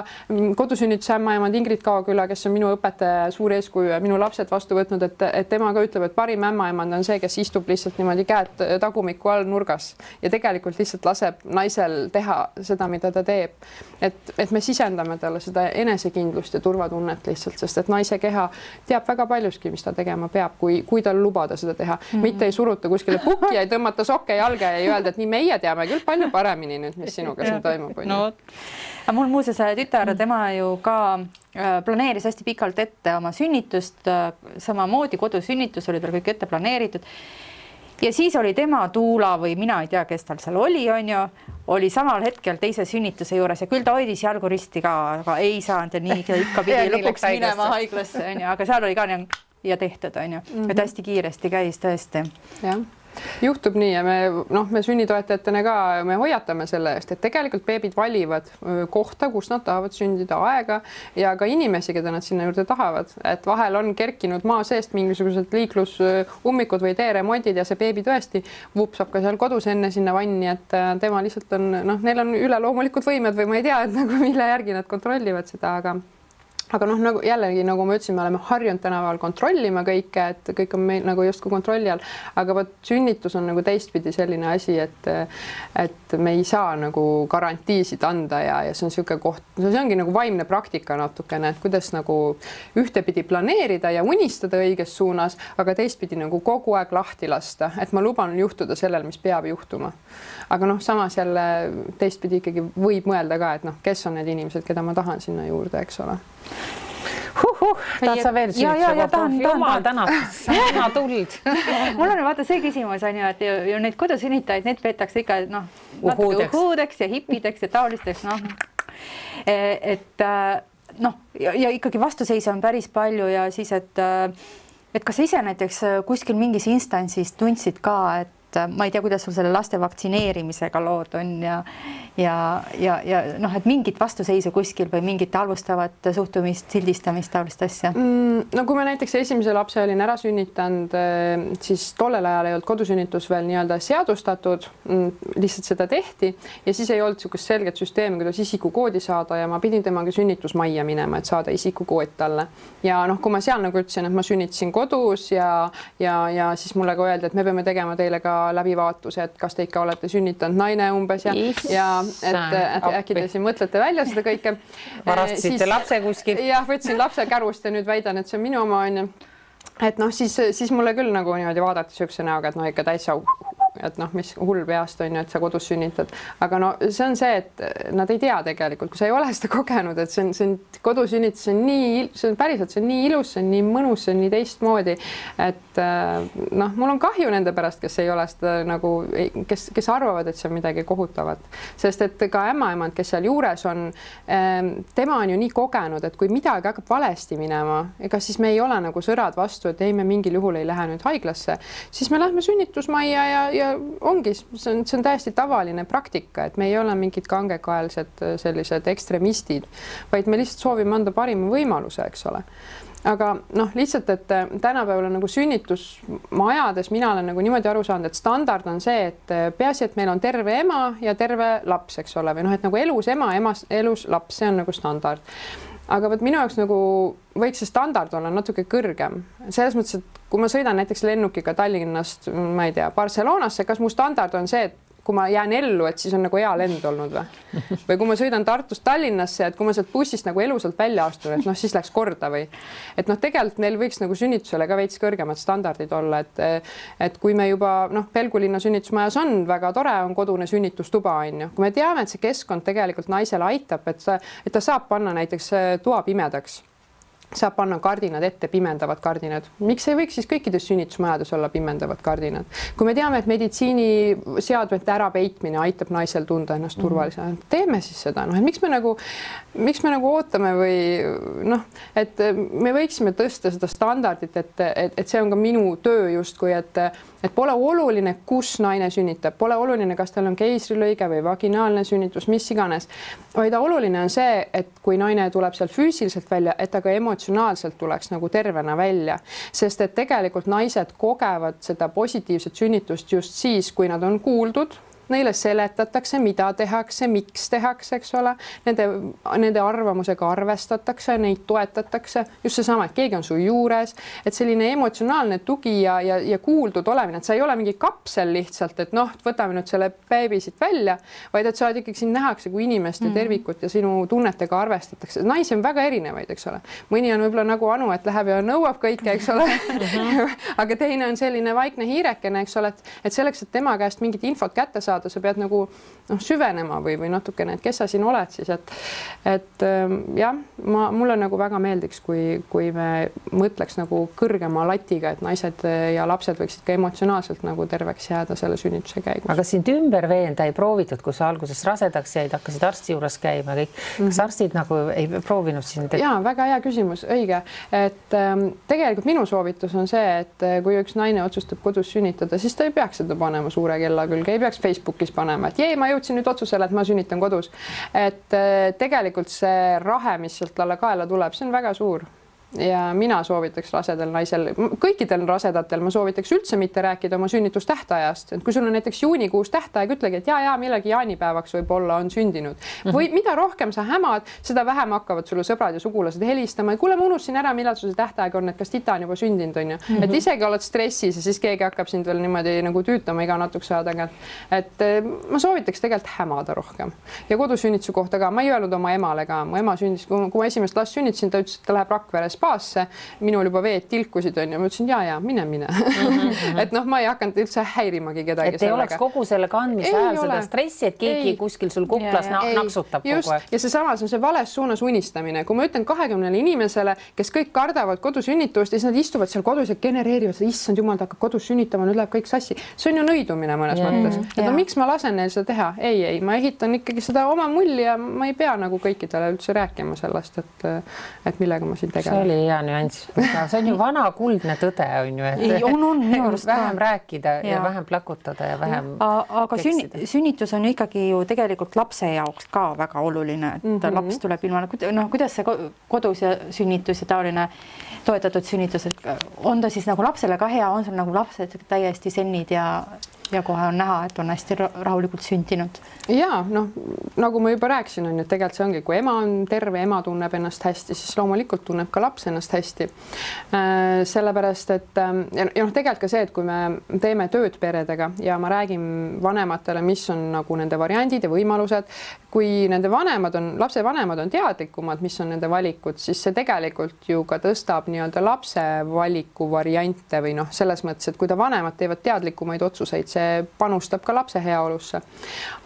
kodusünnituse ämmaemand Ingrid Kaoküla, kes on minu õpetaja suur eeskuju ja minu lapsed vastu võtnud, et tema ka ütleb, et parim ämmaemand on see, kes istub lihtsalt niimoodi käed tagumiku all nurgas ja tegelikult lihtsalt laseb naisel teha seda, mida ta teeb. Et me sisendame talle seda enesekindlust ja turvatunnet lihtsalt, sest et naise keha teab väga paljuski, mis ta tegema peab, kui tal lubada seda teha. Mitte ei suruta kuskile pukki ja ei tõmmata sokke jalge ja ei öelda, et nii meie teame küll palju paremini nüüd, mis sinuga siin toimub. No, mul muuseas tütar, tema ju ka planeeris hästi pikalt ette oma sünnitust, samamoodi kodusünnitus oli tal kõik ette planeeritud. Ja siis oli tema tuula või mina ei tea, kes tal seal oli oli samal hetkel teise sünnituse juures ja küll ta hoidis jalgu risti ka, aga ei saanud ja nii ikka pidi lõpuks minema haiglasse, aga seal oli ka ja tehtud, et hästi kiiresti käis tõesti. Jah. Juhtub nii ja me sünnitoetajatena ka me hoiatame selle eest, et tegelikult beebid valivad kohta, kus nad tahavad sündida, aega ja ka inimesi, keda nad sinna juurde tahavad. Et vahel on kerkinud maa seest mingisugused liiklusummikud või teeremondid ja see beebi tõesti vupsab ka seal kodus enne sinna vanni, et tema lihtsalt on, neil on üleloomulikud võimed või ma ei tea, et mille järgi nad kontrollivad seda, aga nagu jällegi, nagu ma ütlesin, me oleme harjunud tänapäeval kontrollima kõike, et kõik on meil nagu justkui kontrolli all, aga võt sünnitus on nagu teistpidi selline asi, et me ei saa nagu garantiisid anda ja see on niisugune koht, see ongi nagu vaimne praktika natukene, et kuidas nagu ühtepidi planeerida ja unistada õiges suunas, aga teistpidi nagu kogu aeg lahti lasta, et ma luban juhtuda sellel, mis peab juhtuma. Aga samas jälle teistpidi ikkagi võib mõelda ka, et kes on need inimesed, keda ma tahan sinna juurde, eks ole. Tahad sa veel süütsa? Jumal tänab, sina tuld. Mul on vaata see küsimus on ju, et ju neid kodusünnitajaid, need peetakse ikka natuke uhuudeks ja hippideks ja taolisteks. Ja ikkagi vastuseis on päris palju ja siis, et kas ise näiteks kuskil mingis instantsis tundsid ka, et ma ei tea, kuidas sul selle laste vaktsineerimisega lood on et mingit vastuseisu kuskil või mingit halvustavat suhtumist, sildistamist, taolist asja? No kui ma näiteks esimese lapse olin ära sünnitanud, siis tollel ajal ei olnud kodusünnitus veel nii-öelda seadustatud, lihtsalt seda tehti ja siis ei olnud niisugust selget süsteemi, kuidas isikukoodi saada ja ma pidin temaga sünnitusmajja minema, et saada isikukood talle. Ja kui ma seal nagu ütlesin, et ma sünnitasin kodus ja siis mulle ka öeldi, et me peame tegema teile ka läbivaatus, et kas te ikka olete sünnitanud naine umbes ja et äkki te siin mõtlete välja seda kõike. Varastasite lapse kuskil. Jah, võtsin lapse kärust ja nüüd väidan, et see on minu oma on. Et siis mulle küll nagu niimoodi vaadati sükse näoga, et ikka täitsa et mis hull peast on ju, et sa kodus sünnitad. Aga see on see, et nad ei tea tegelikult, kui sa ei ole seda kogenud, et see on kodusünnitus, see on päriselt, see on nii ilus, see on nii mõnus, see on nii teistmoodi, et mul on kahju nende pärast, kes ei ole seda nagu, kes arvavad, et see on midagi kohutavat. Sest et ka ämmaemand, kes seal juures on, tema on ju nii kogenud, et kui midagi hakkab valesti minema, ega siis me ei ole nagu sõrad vastu, et ei, me mingil juhul ei lähe nüüd haiglasse, siis me lähme sünnitusmajja ja ongi, see on täiesti tavaline praktika, et me ei ole mingid kangekaelsed sellised ekstremistid, vaid me lihtsalt soovime anda parima võimaluse, eks ole. Aga lihtsalt, et tänapäeval nagu sünnitusmajades mina olen nagu niimoodi aru saanud, et standard on see, et peaasi, et meil on terve ema ja terve laps, eks ole, või et nagu elus ema, elus laps, see on nagu standard. Aga minu jaoks nagu võiks see standard olla natuke kõrgem. Selles mõttes, et kui ma sõidan näiteks lennukiga Tallinnast, ma ei tea, Barcelonasse, kas mu standard on see, et kui ma jään ellu, et siis on nagu hea lend olnud või? Või kui ma sõidan Tartust Tallinnasse, et kui ma sealt bussist nagu elusalt välja astun, et siis läks korda või? Et tegelikult neil võiks nagu sünnitusele ka veits kõrgemad standardid olla, et kui me juba Pelgulinna sünnitusmajas on väga tore, on kodune sünnitustuba on ju. Kui me teame, et see keskkond tegelikult naisele aitab, et ta saab panna näiteks toa pimedaks. saab panna kardinad ette, pimendavad kardinad. Miks ei võiks siis kõikides sünnitusmajades olla pimendavad kardinad? Kui me teame, et meditsiiniseadmete ärapeitmine aitab naisel tunda ennast turvalisena, teeme siis seda. Noh, et miks me nagu ootame või noh, et me võiksime tõsta seda standardit, et see on ka minu töö justkui, et pole oluline, kus naine sünnitab, pole oluline, kas tal on keisrilõige või vaginaalne sünnitus, mis iganes, vaid oluline on see, et kui naine tuleb seal füüsiliselt välja, et ta ka emotsionaalselt tuleks nagu tervena välja, sest et tegelikult naised kogevad seda positiivset sünnitust just siis, kui nad on kuuldud, neile seletatakse, mida tehakse, miks tehakse, eks ole, nende arvamusega arvestatakse, neid toetatakse, just seesama, et keegi on su juures, et selline emotsionaalne tugi ja kuuldud olemine, et sa ei ole mingi kapsel lihtsalt, et noh, võtame nüüd selle beebi siit välja, vaid et sa oled ikkagi, sind nähakse kui inimeste tervikut ja sinu tunnetega arvestatakse. Naisi on väga erinevaid, eks ole. Mõni on võib-olla nagu Anu, et läheb ja nõuab kõike, eks ole. Aga teine on selline vaikne hiirekene, eks ole, et selleks, et tema käest mingit infot kätte saada, sa pead nagu süvenema või natukene, et kes sa siin oled siis, et jah, mulle nagu väga meeldiks, kui me mõtleks nagu kõrgema latiga, et naised ja lapsed võiksid ka emotsionaalselt nagu terveks jääda selle sünnituse käigus. Aga sind ümber veenda ei proovitud, kui sa alguses rasedaks jäid, hakkasid arsti juures käima kõik. Kas arstid nagu ei proovinud sind? Jaa, väga hea küsimus, õige. Et tegelikult minu soovitus on see, et kui üks naine otsustab kodus sünnitada, siis ta ei peaks seda panema suure kella külge, ei peaks Facebookis panema, et ma jõudsin nüüd otsusele, et ma sünnitan kodus. Et tegelikult see rahe, mis sealt talle kaela tuleb, see on väga suur. Ja mina soovitaks rasedal naisel, kõikidel rasedatel ma soovitaks üldse mitte rääkida oma sünnitustähtajast. Et kui sul on näiteks juunikuus tähtaeg, ütlegi, et millegi jaanipäevaks võib-olla on sündinud. Või mida rohkem sa hämad, seda vähem hakkavad sulle sõbrad ja sugulased helistama. Kuule, ma unustasin ära, millal sul see tähtaeg on, et kas tita on juba sündinud, on ju. Et isegi oled stressis ja siis keegi hakkab sind veel niimoodi nagu tüütama iga natukese aja tagant. Et ma soovitaks tegelikult hämada rohkem. Ja kodusünnituse kohta ka, ma ei öelnud oma emale ka. Mu ema sündis, kui ma esimest last sünnitasin, ta ütles, et ta läheb Rakveres spaasse, minul juba veed tilkusid on ja ma ütlesin, ja, mine. Et noh, ma ei hakanud üldse häirimagi kedagi. Et ei oleks kogu selle kandmise ajal seda stressi, et keegi kuskil sul kuplas naksutab kogu aeg. Ja see samas on see vales suunas unistamine. Kui ma ütlen 20 inimesele, kes kõik kardavad kodusünnitust ja siis nad istuvad seal kodus ja genereerivad seda, issand jumal, ta hakkab kodus sünnitama, nüüd läheb kõik sassi. See on ju nõidumine mõnes mõttes. Et no miks ma lasen neil seda teha? Ei, ma ehitan ikkagi seda oma mulli ja ma ei pea nagu kõikidele üldse rääkima sellest, et millega ma siin tegelen. See oli hea nüanss. See on ju vana kuldne tõde, on ju, et vähem rääkida ja vähem plakutada ja vähem aga sünnitus on ikkagi ju tegelikult lapse jaoks ka väga oluline, et laps tuleb ilma, kuidas see kodus ja sünnitus ja taoline toetatud sünnitus, on ta siis nagu lapsele ka hea, on sul nagu lapsed täiesti sennid ja kohe on näha, et on hästi rahulikult sündinud. Ja, noh, nagu ma juba rääkisin, on, et tegelikult see ongi, kui ema on terve, ema tunneb ennast hästi, siis loomulikult tunneb ka laps ennast hästi. Sellepärast, et tegelikult ka see, et kui me teeme tööd peredega ja ma räägin vanematele, mis on nagu nende variandid ja võimalused, kui nende lapse vanemad on teadlikumad, mis on nende valikud, siis see tegelikult ju ka tõstab nii-öelda lapse valiku variante või noh, selles mõttes, et kui ta vanemad teevad teadlikumaid otsuseid, see panustab ka lapse heaolusse.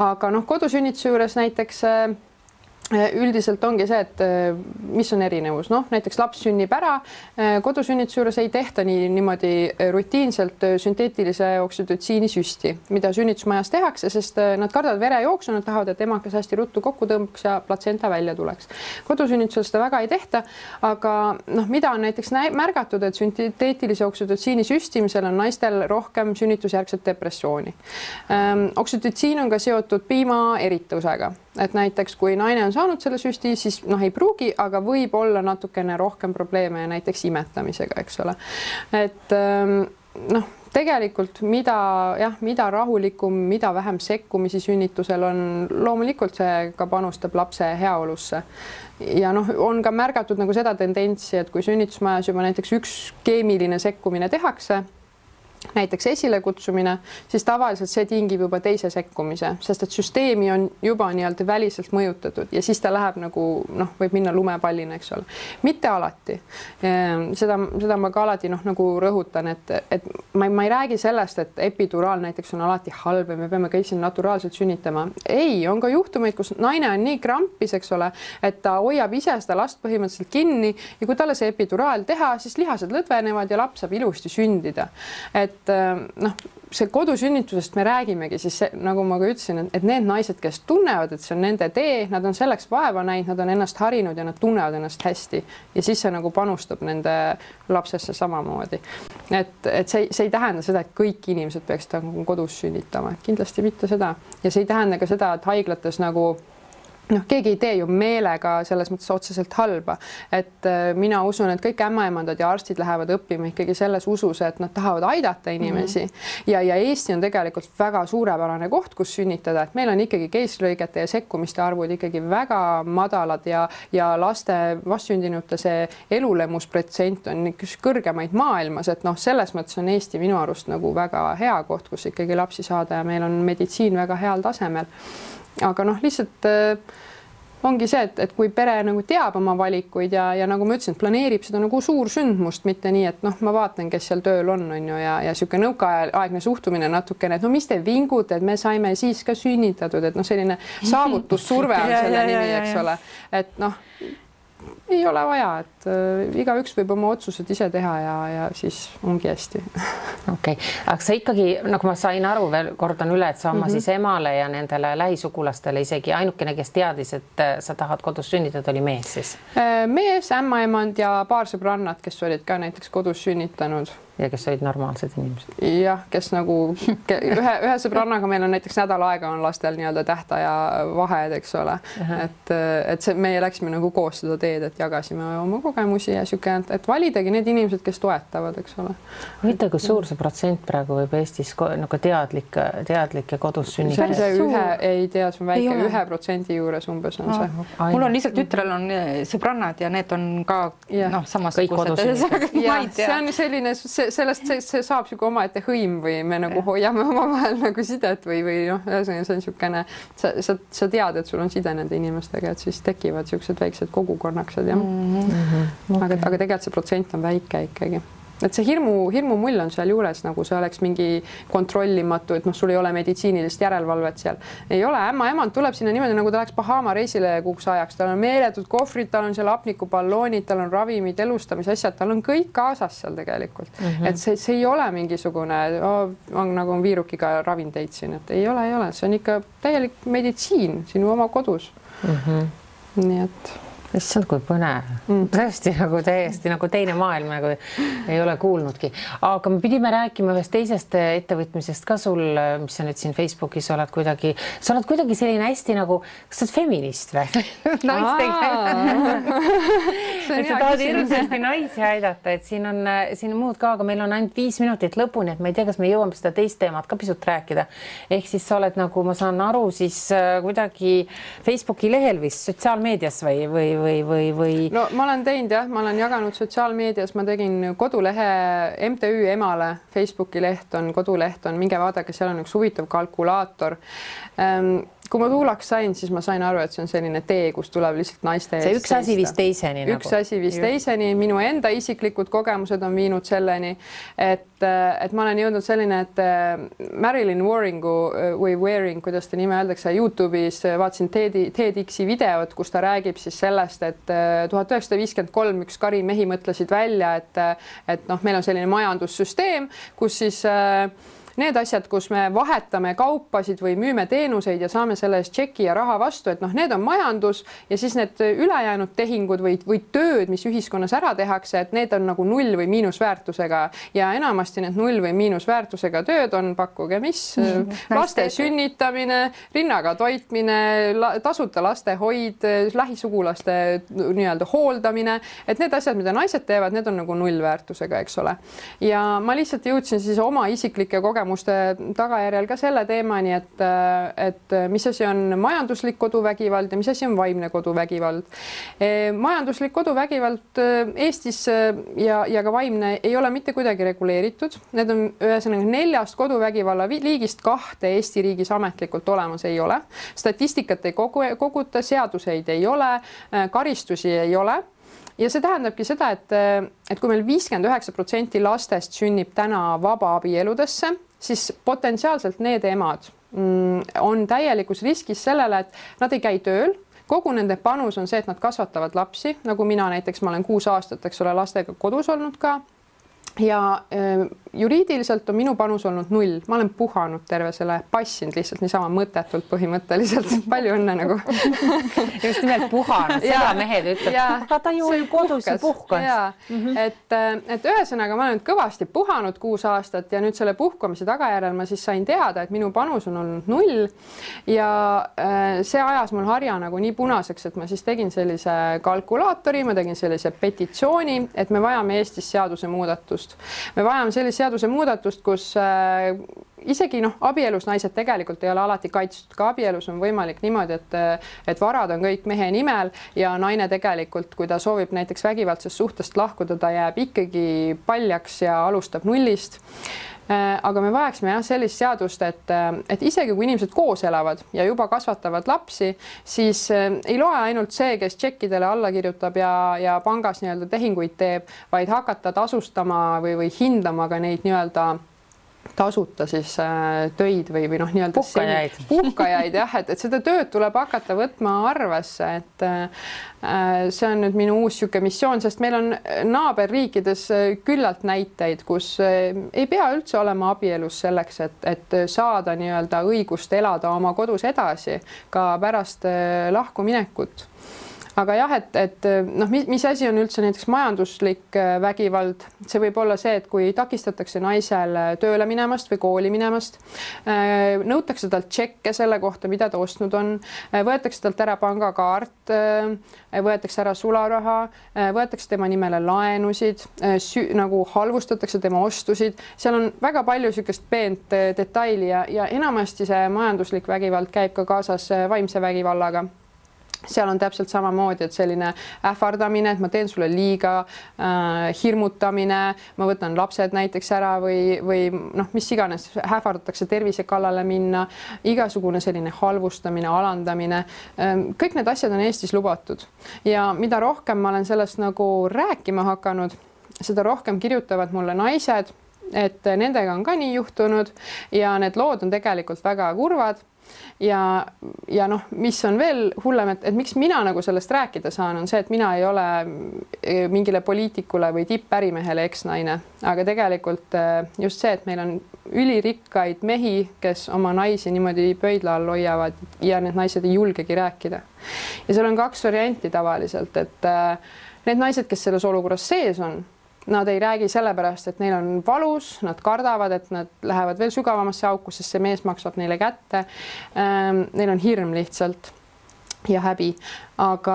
Aga noh, kodusünnituse juures näiteks üldiselt ongi see, et mis on erinevus. Noh, näiteks laps sünnib ära, kodusünnituse juures ei tehta niimoodi rutiinselt sünteetilise oksütotsiini süsti, mida sünnitusmajas tehakse, sest nad kardavad verejooksu, nad tahavad, et emakas hästi ruttu kokku tõmbaks ja platsenta välja tuleks. Kodusünnitusel seda väga ei tehta, aga noh, mida on näiteks märgatud, et sünteetilise oksütotsiini süstimisel on naistel rohkem sünnitusjärgset depressiooni. Oksütotsiin on ka seotud piima eritusega. Et näiteks kui naine on saanud selle süsti, siis noh, ei pruugi, aga võib olla natukene rohkem probleeme näiteks imetamisega, eks ole. Et noh, tegelikult mida rahulikum, mida vähem sekkumisi sünnitusel on, loomulikult see ka panustab lapse heaolusse. Ja noh, on ka märgatud nagu seda tendentsi, et kui sünnitusmajas juba näiteks üks keemiline sekkumine tehakse, näiteks esilekutsumine, siis tavaliselt see tingib juba teise sekkumise, sest et süsteemi on juba nii-öelda väliselt mõjutatud ja siis ta läheb nagu võib minna lumepallina, eks ole. Mitte alati. Seda ma ka alati nagu rõhutan, et ma ei räägi sellest, et epiduraal näiteks on alati halb ja me peame kõik siin naturaalselt sünnitama. Ei, on ka juhtumeid, kus naine on nii krampis, eks ole, et ta hoiab ise seda last põhimõtteliselt kinni ja kui talle see epiduraal teha, siis lihased lõdvenevad ja laps saab ilusti sündida. See kodusünnitusest me räägimegi siis, nagu ma ka ütlesin, et need naised, kes tunnevad, et see on nende tee, nad on selleks vaeva näinud, nad on ennast harinud ja nad tunnevad ennast hästi ja siis see nagu panustab nende lapsesse samamoodi. Et see ei tähenda seda, et kõik inimesed peaksid kodus sünnitama, kindlasti mitte seda ja see ei tähenda ka seda, et haiglates nagu keegi ei tee ju meelega selles mõttes otseselt halba, et mina usun, et kõik ämmaemandad ja arstid lähevad õppima ikkagi selles usus, et nad tahavad aidata inimesi ja Eesti on tegelikult väga suurepärane koht, kus sünnitada, et meil on ikkagi keisrilõigete ja sekkumiste arvud ikkagi väga madalad ja laste vastsündinute see elulemusprotsent on üks kõrgemaid maailmas, et selles mõttes on Eesti minu arust nagu väga hea koht, kus ikkagi lapsi saada ja meil on meditsiin väga heal tasemel. Aga lihtsalt ongi see, et kui pere nagu teab oma valikuid ja nagu ma ütlesin, planeerib seda nagu suur sündmust, mitte nii, et ma vaatan, kes seal tööl on ju ja sihuke nõukaaegne suhtumine natukene, et mis te vingute, et me saime siis ka sünnitatud, et selline saavutussurve on selle nimi, eks ole, et ei ole vaja, et igaüks võib oma otsused ise teha ja siis ongi hästi. Okei, aga sa ikkagi, nagu ma sain aru, veel kordan üle, et sa oma siis emale ja nendele lähisugulastele isegi ainukene, kes teadis, et sa tahad kodus sünnitada, oli mees siis? Mees, ämmaemand ja paar sõbrannat, kes olid ka näiteks kodus sünnitanud. Ja kes olid normaalsed inimesed? Jah, kes nagu ühe sõbrannaga meil on näiteks nädal aega on lastel nii-öelda tähtaja vahed, eks ole. Et meie läksime nagu koos seda teed, et jagasime oma kogemusi ja siuke, et validagi need inimesed, kes toetavad, eks ole. Võite, kui suur see protsent praegu võib Eestis nagu teadlikke kodus sünnitada? Ei tea, see on väike 1% juures umbes on see. Mul on lihtsalt tütrel on sõbrannad ja need on ka samasugused. See on selline, sellest see saab siuke omaette hõim või me nagu hoiame omavahel nagu sidet või see on siukene, sa tead, et sul on side nende inimestega, et siis tekivad siuksed väiksed kogukonnaksid, jah. Aga tegelikult see protsent on väike ikkagi. Et see hirmu mull on seal juures, nagu see oleks mingi kontrollimatu, et sul ei ole meditsiinilist järelevalvet seal. Ei ole, ämmaemand tuleb sinna niimoodi, nagu ta läheks Bahama reisile kuuks ajaks. Tal on meeletud kohvrid, tal on seal apnikuballoonid, tal on ravimid, elustamisasjad, tal on kõik kaasas seal tegelikult. Et see ei ole mingisugune, nagu on viirukiga ravinteid siin, et ei ole. See on ikka täielik meditsiin sinu oma kodus. Nii et... Issand, kui põnev. Tõesti nagu täiesti nagu teine maailm, nagu ei ole kuulnudki. Aga me pidime rääkima ühest teisest ettevõtmisest ka sul, mis sa nüüd siin Facebookis oled kuidagi selline hästi nagu, kas sa oled feminist või? Sa tahad hirmsasti naisi aidata, et siin on muud ka, aga meil on ainult 5 minutit lõpuni, et ma ei tea, kas me jõuame seda teist teemat ka pisut rääkida. Ehk siis sa oled nagu, ma saan aru, siis kuidagi Facebooki lehel vist sotsiaalmeedias või? No ma olen teinud jah, ma olen jaganud sotsiaalmeedias, ma tegin kodulehe MTÜ Emale, Facebooki leht on, koduleht on, minge vaadake, seal on üks huvitav kalkulaator. Kui ma tuulaks sain, siis ma sain aru, et see on selline tee, kus tuleb lihtsalt naiste eest. See üks asi viis teiseni. Üks asi viis teiseni, minu enda isiklikud kogemused on viinud selleni, et ma olen jõudnud selline, et Marilyn Waring, kuidas ta nime öeldakse, YouTube'is vaatasin TEDx'i videot, kus ta räägib siis sellest, et 1953 üks kari mehi mõtlesid välja, et meil on selline majandussüsteem, kus siis need asjad, kus me vahetame kaupasid või müüme teenuseid ja saame selle eest tšeki ja raha vastu, et need on majandus ja siis need ülejäänud tehingud või tööd, mis ühiskonnas ära tehakse, et need on nagu null või miinusväärtusega ja enamasti need null või miinusväärtusega tööd on, pakkuge mis, laste sünnitamine, rinnaga toitmine, tasuta lastehoid, lähisugulaste nii-öelda hooldamine, et need asjad, mida naised teevad, need on nagu nullväärtusega, eks ole. Ja ma lihtsalt jõudsin siis oma isiklike kogemustega uurimuste tagajärjel ka selle teemani, et mis asi on majanduslik koduvägivald ja mis asi on vaimne koduvägivald. Majanduslik koduvägivald Eestis ja ka vaimne ei ole mitte kuidagi reguleeritud. Need on ühesõnaga 4 koduvägivalla liigist 2 Eesti riigis ametlikult olemas ei ole. Statistikat ei koguta, seaduseid ei ole, karistusi ei ole. Ja see tähendabki seda, et kui meil 59% lastest sünnib täna vabaabieludesse, siis potentsiaalselt need emad on täielikus riskis sellele, et nad ei käi tööl. Kogu nende panus on see, et nad kasvatavad lapsi, nagu mina näiteks, ma olen 6 aastat, eks ole, lastega kodus olnud ka. Ja juriidiliselt on minu panus olnud 0. Ma olen puhanud terve selle, passinud lihtsalt niisama mõttetult põhimõtteliselt. Palju õnne nagu. Just nimelt puhanud, seda mehed ütleb, aga ta ju oli kodus ja puhkas. Et ühesõnaga ma olen kõvasti puhanud 6 aastat ja nüüd selle puhkamise tagajärjel ma siis sain teada, et minu panus on olnud 0 ja see ajas mul harja nagu nii punaseks, et ma siis tegin sellise kalkulaatori, ma tegin sellise petitsiooni, et me vajame Eestis seaduse muudatust. Me vajame sellist seaduse muudatust, kus isegi abielus naised tegelikult ei ole alati kaitstud. Ka abielus on võimalik niimoodi, et varad on kõik mehe nimel ja naine tegelikult, kui ta soovib näiteks vägivaldsest suhtest lahkuda, ta jääb ikkagi paljaks ja alustab 0. Aga me vajaksime sellist seadust, et isegi kui inimesed koos elavad ja juba kasvatavad lapsi, siis ei loe ainult see, kes tšekkidele alla kirjutab ja pangas nii-öelda tehinguid teeb, vaid hakata tasustama või hindama ka neid nii-öelda tasuta siis töid või nii-öelda puhkajaid jah, et seda tööd tuleb hakata võtma arvesse, et see on nüüd minu uus siuke missioon, sest meil on naaberriikides küllalt näiteid, kus ei pea üldse olema abielus selleks, et saada nii-öelda õigust elada oma kodus edasi ka pärast lahkuminekut. Aga jah, et mis asi on üldse näiteks majanduslik vägivald, see võib olla see, et kui takistatakse naisel tööle minemast või kooli minemast, nõutakse talt tšekke selle kohta, mida ta ostnud on, võetakse talt ära pangakaart, võetakse ära sularaha, võetakse tema nimele laenusid, nagu halvustatakse tema ostusid, seal on väga palju niisugust peent detaili ja enamasti see majanduslik vägivald käib ka kaasas vaimse vägivallaga. Seal on täpselt samamoodi, et selline ähvardamine, et ma teen sulle liiga, hirmutamine, ma võtan lapsed näiteks ära või mis iganes, ähvardatakse tervise kallale minna, igasugune selline halvustamine, alandamine. Kõik need asjad on Eestis lubatud ja mida rohkem ma olen sellest nagu rääkima hakanud, seda rohkem kirjutavad mulle naised, et nendega on ka nii juhtunud ja need lood on tegelikult väga kurvad. Ja mis on veel hullem, et miks mina nagu sellest rääkida saan, on see, et mina ei ole mingile poliitikule või tippärimehele eksnaine, aga tegelikult just see, et meil on ülirikkaid mehi, kes oma naisi niimoodi pöidla all hoiavad ja need naised ei julgegi rääkida. Ja seal on 2 varianti tavaliselt, et need naised, kes selles olukorras sees on, nad ei räägi sellepärast, et neil on valus, nad kardavad, et nad lähevad veel sügavamasse auku, sest see mees maksab neile kätte. Neil on hirm lihtsalt ja häbi, aga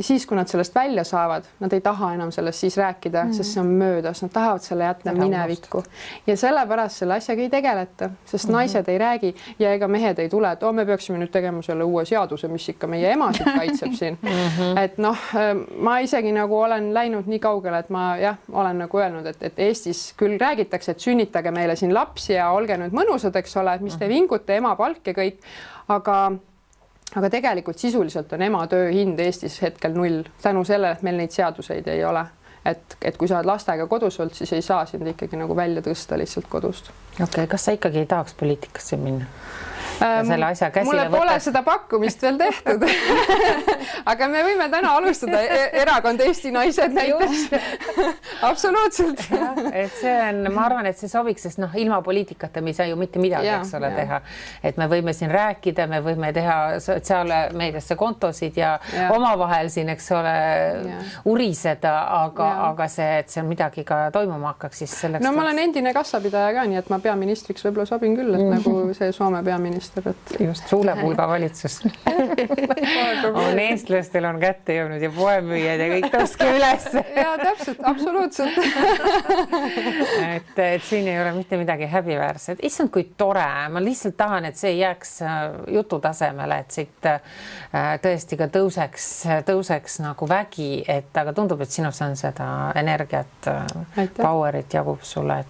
siis, kui nad sellest välja saavad, nad ei taha enam sellest siis rääkida, sest see on möödas, nad tahavad selle jätta minevikku ja sellepärast selle asjaga ei tegeleta, sest naised ei räägi ja ega mehed ei tule, et me peaksime nüüd tegema selle uue seaduse, mis ikka meie emasid kaitseb siin. Et ma isegi nagu olen läinud nii kaugele, et ma olen nagu öelnud, et Eestis küll räägitakse, et sünnitage meile siin lapsi ja olge nüüd mõnusad, eks ole, mis te vingute, ema palk ja kõik, aga tegelikult sisuliselt on ema töö hind Eestis hetkel 0 tänu sellele, et meil neid seaduseid ei ole. Et kui sa oled lastega kodus olnud, siis ei saa sind ikkagi nagu välja tõsta lihtsalt kodust. Okei, kas sa ikkagi ei tahaks poliitikasse minna? Selle asja käsile mulle pole seda pakkumist veel tehtud. Aga me võime täna alustada erakond Eesti naised näiteks. Absoluutselt. Et see on, ma arvan, et see sobiks, sest ilma poliitikata me ei saa ju mitte midagi, eks ole, teha. Et me võime siin rääkida, me võime teha sotsiaalmeediasse kontosid ja omavahel siin, eks ole, uriseda, aga see, et see midagi ka toimuma hakkaks, siis selleks... No ma olen endine kassapidaja ka, nii et ma peaministriks võib-olla sobin küll, et nagu see Soome peaminister. peaminister, et just suulepulga valitsus on eestlastel on kätte jõudnud ja poemüüjad ja kõik tõstke üles. ja täpselt, absoluutselt. et siin ei ole mitte midagi häbiväärset. Issand, kui tore, ma lihtsalt tahan, et see ei jääks jutu tasemele, et siit tõesti ka tõuseks nagu vägi, et aga tundub, et sinus on seda energiat, powerit jagub sulle, et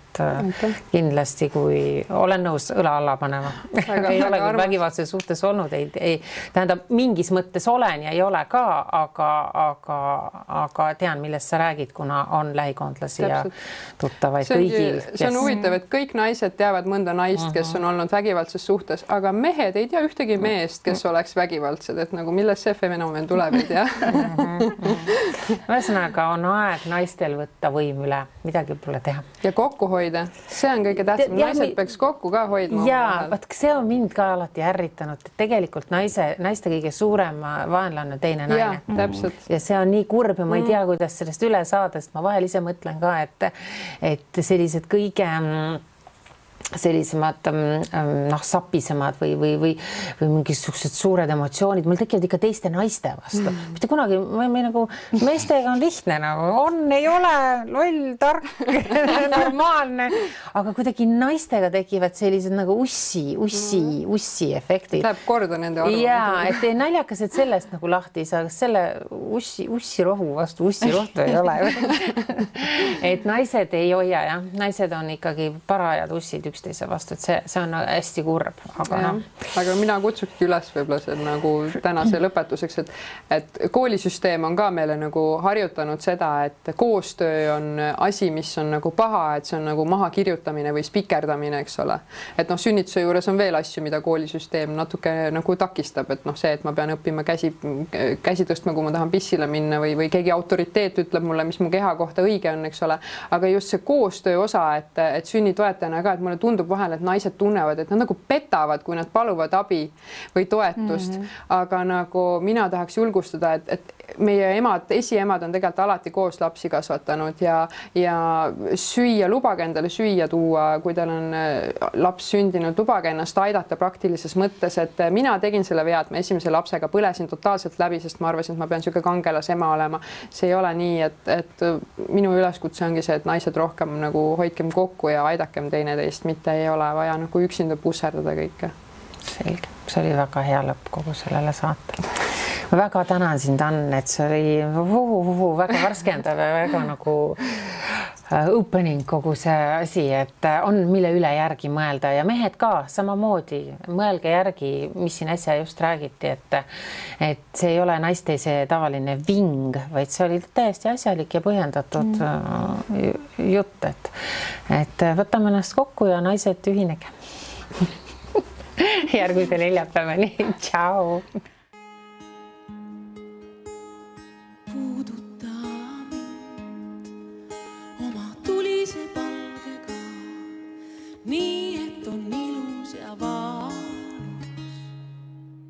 kindlasti, kui olen nõus õla alla panema. ei ole küll vägivaldses suhtes olnud, ei tähendab, mingis mõttes olen ja ei ole ka, aga tean, millest sa räägid, kuna on lähikondlasi ja tuttavaid kõigil. See on huvitav, et kõik naised teavad mõnda naist, kes on olnud vägivaldses suhtes, aga mehed ei tea ühtegi meest, kes oleks vägivaldsed, et nagu millest see fenomen tuleb, ei tea. Ühesõnaga on aeg naistel võtta võim üle, midagi pole teha. Ja kokku hoida, see on kõige tähtsam. Naised peaks kokku ka hoidma. Ja, see on mind ka alati ärritanud, et tegelikult naiste kõige suurem vaenlane on teine naine. Ja, täpselt. Ja see on nii kurb ja ma ei tea, kuidas sellest üle saada, sest ma vahel ise mõtlen ka, et sellised kõige sellisemad sapisemad või mingisugused suured emotsioonid, mul tekivad ikka teiste naiste vastu. Mitte kunagi, nagu meestega on lihtne, nagu on, ei ole, loll, tark, normaalne, aga kuidagi naistega tekivad sellised nagu ussi efektid. Läheb korda nende arvu. Jaa, et naljakas, et sellest nagu lahti ei saa, kas selle ussirohu vastu ussirohtu ei ole. Et naised ei hoia, jah. Naised on ikkagi parajad ussid üksteise vastu, et see on hästi kurb, aga mina kutsukski üles võib-olla see nagu tänase lõpetuseks, et koolisüsteem on ka meile nagu harjutanud seda, et koostöö on asi, mis on nagu paha, et see on nagu mahakirjutamine või spikerdamine, eks ole. Et sünnituse juures on veel asju, mida koolisüsteem natuke nagu takistab, et see, et ma pean õppima käsi tõstma, kui ma tahan pissile minna või keegi autoriteet ütleb mulle, mis mu keha kohta õige on, eks ole. Aga just see koostöö osa, et sünnitoetajana ka, et mulle tundub vahel, et naised tunnevad, et nad nagu petavad, kui nad paluvad abi või toetust. Aga nagu mina tahaks julgustada, et meie esiemad on tegelikult alati koos lapsi kasvatanud ja süüa, lubage endale süüa tuua, kui teil on laps sündinud, lubage ennast aidata praktilises mõttes, et mina tegin selle vea, et ma esimese lapsega põlesin totaalselt läbi, sest ma arvasin, et ma pean niisugune kangelas ema olema. See ei ole nii, et minu üleskutse ongi see, et naised rohkem nagu hoidkem kokku ja aidakem teineteist, mitte ei ole vaja nagu üksinda pusserdada kõike. Selge, see oli väga hea lõpp kogu sellele saatele. Ma väga tänan sind, Ann, et see oli väga värskendav ja väga nagu opening kogu see asi, et on mille üle järgi mõelda ja mehed ka samamoodi mõelge järgi, mis siin äsja just räägiti, et see ei ole naiste see tavaline ving, vaid see oli täiesti asjalik ja põhjendatud jutt, et võtame ennast kokku ja naised ühinege. Järgmise neljapäevani. Ciao!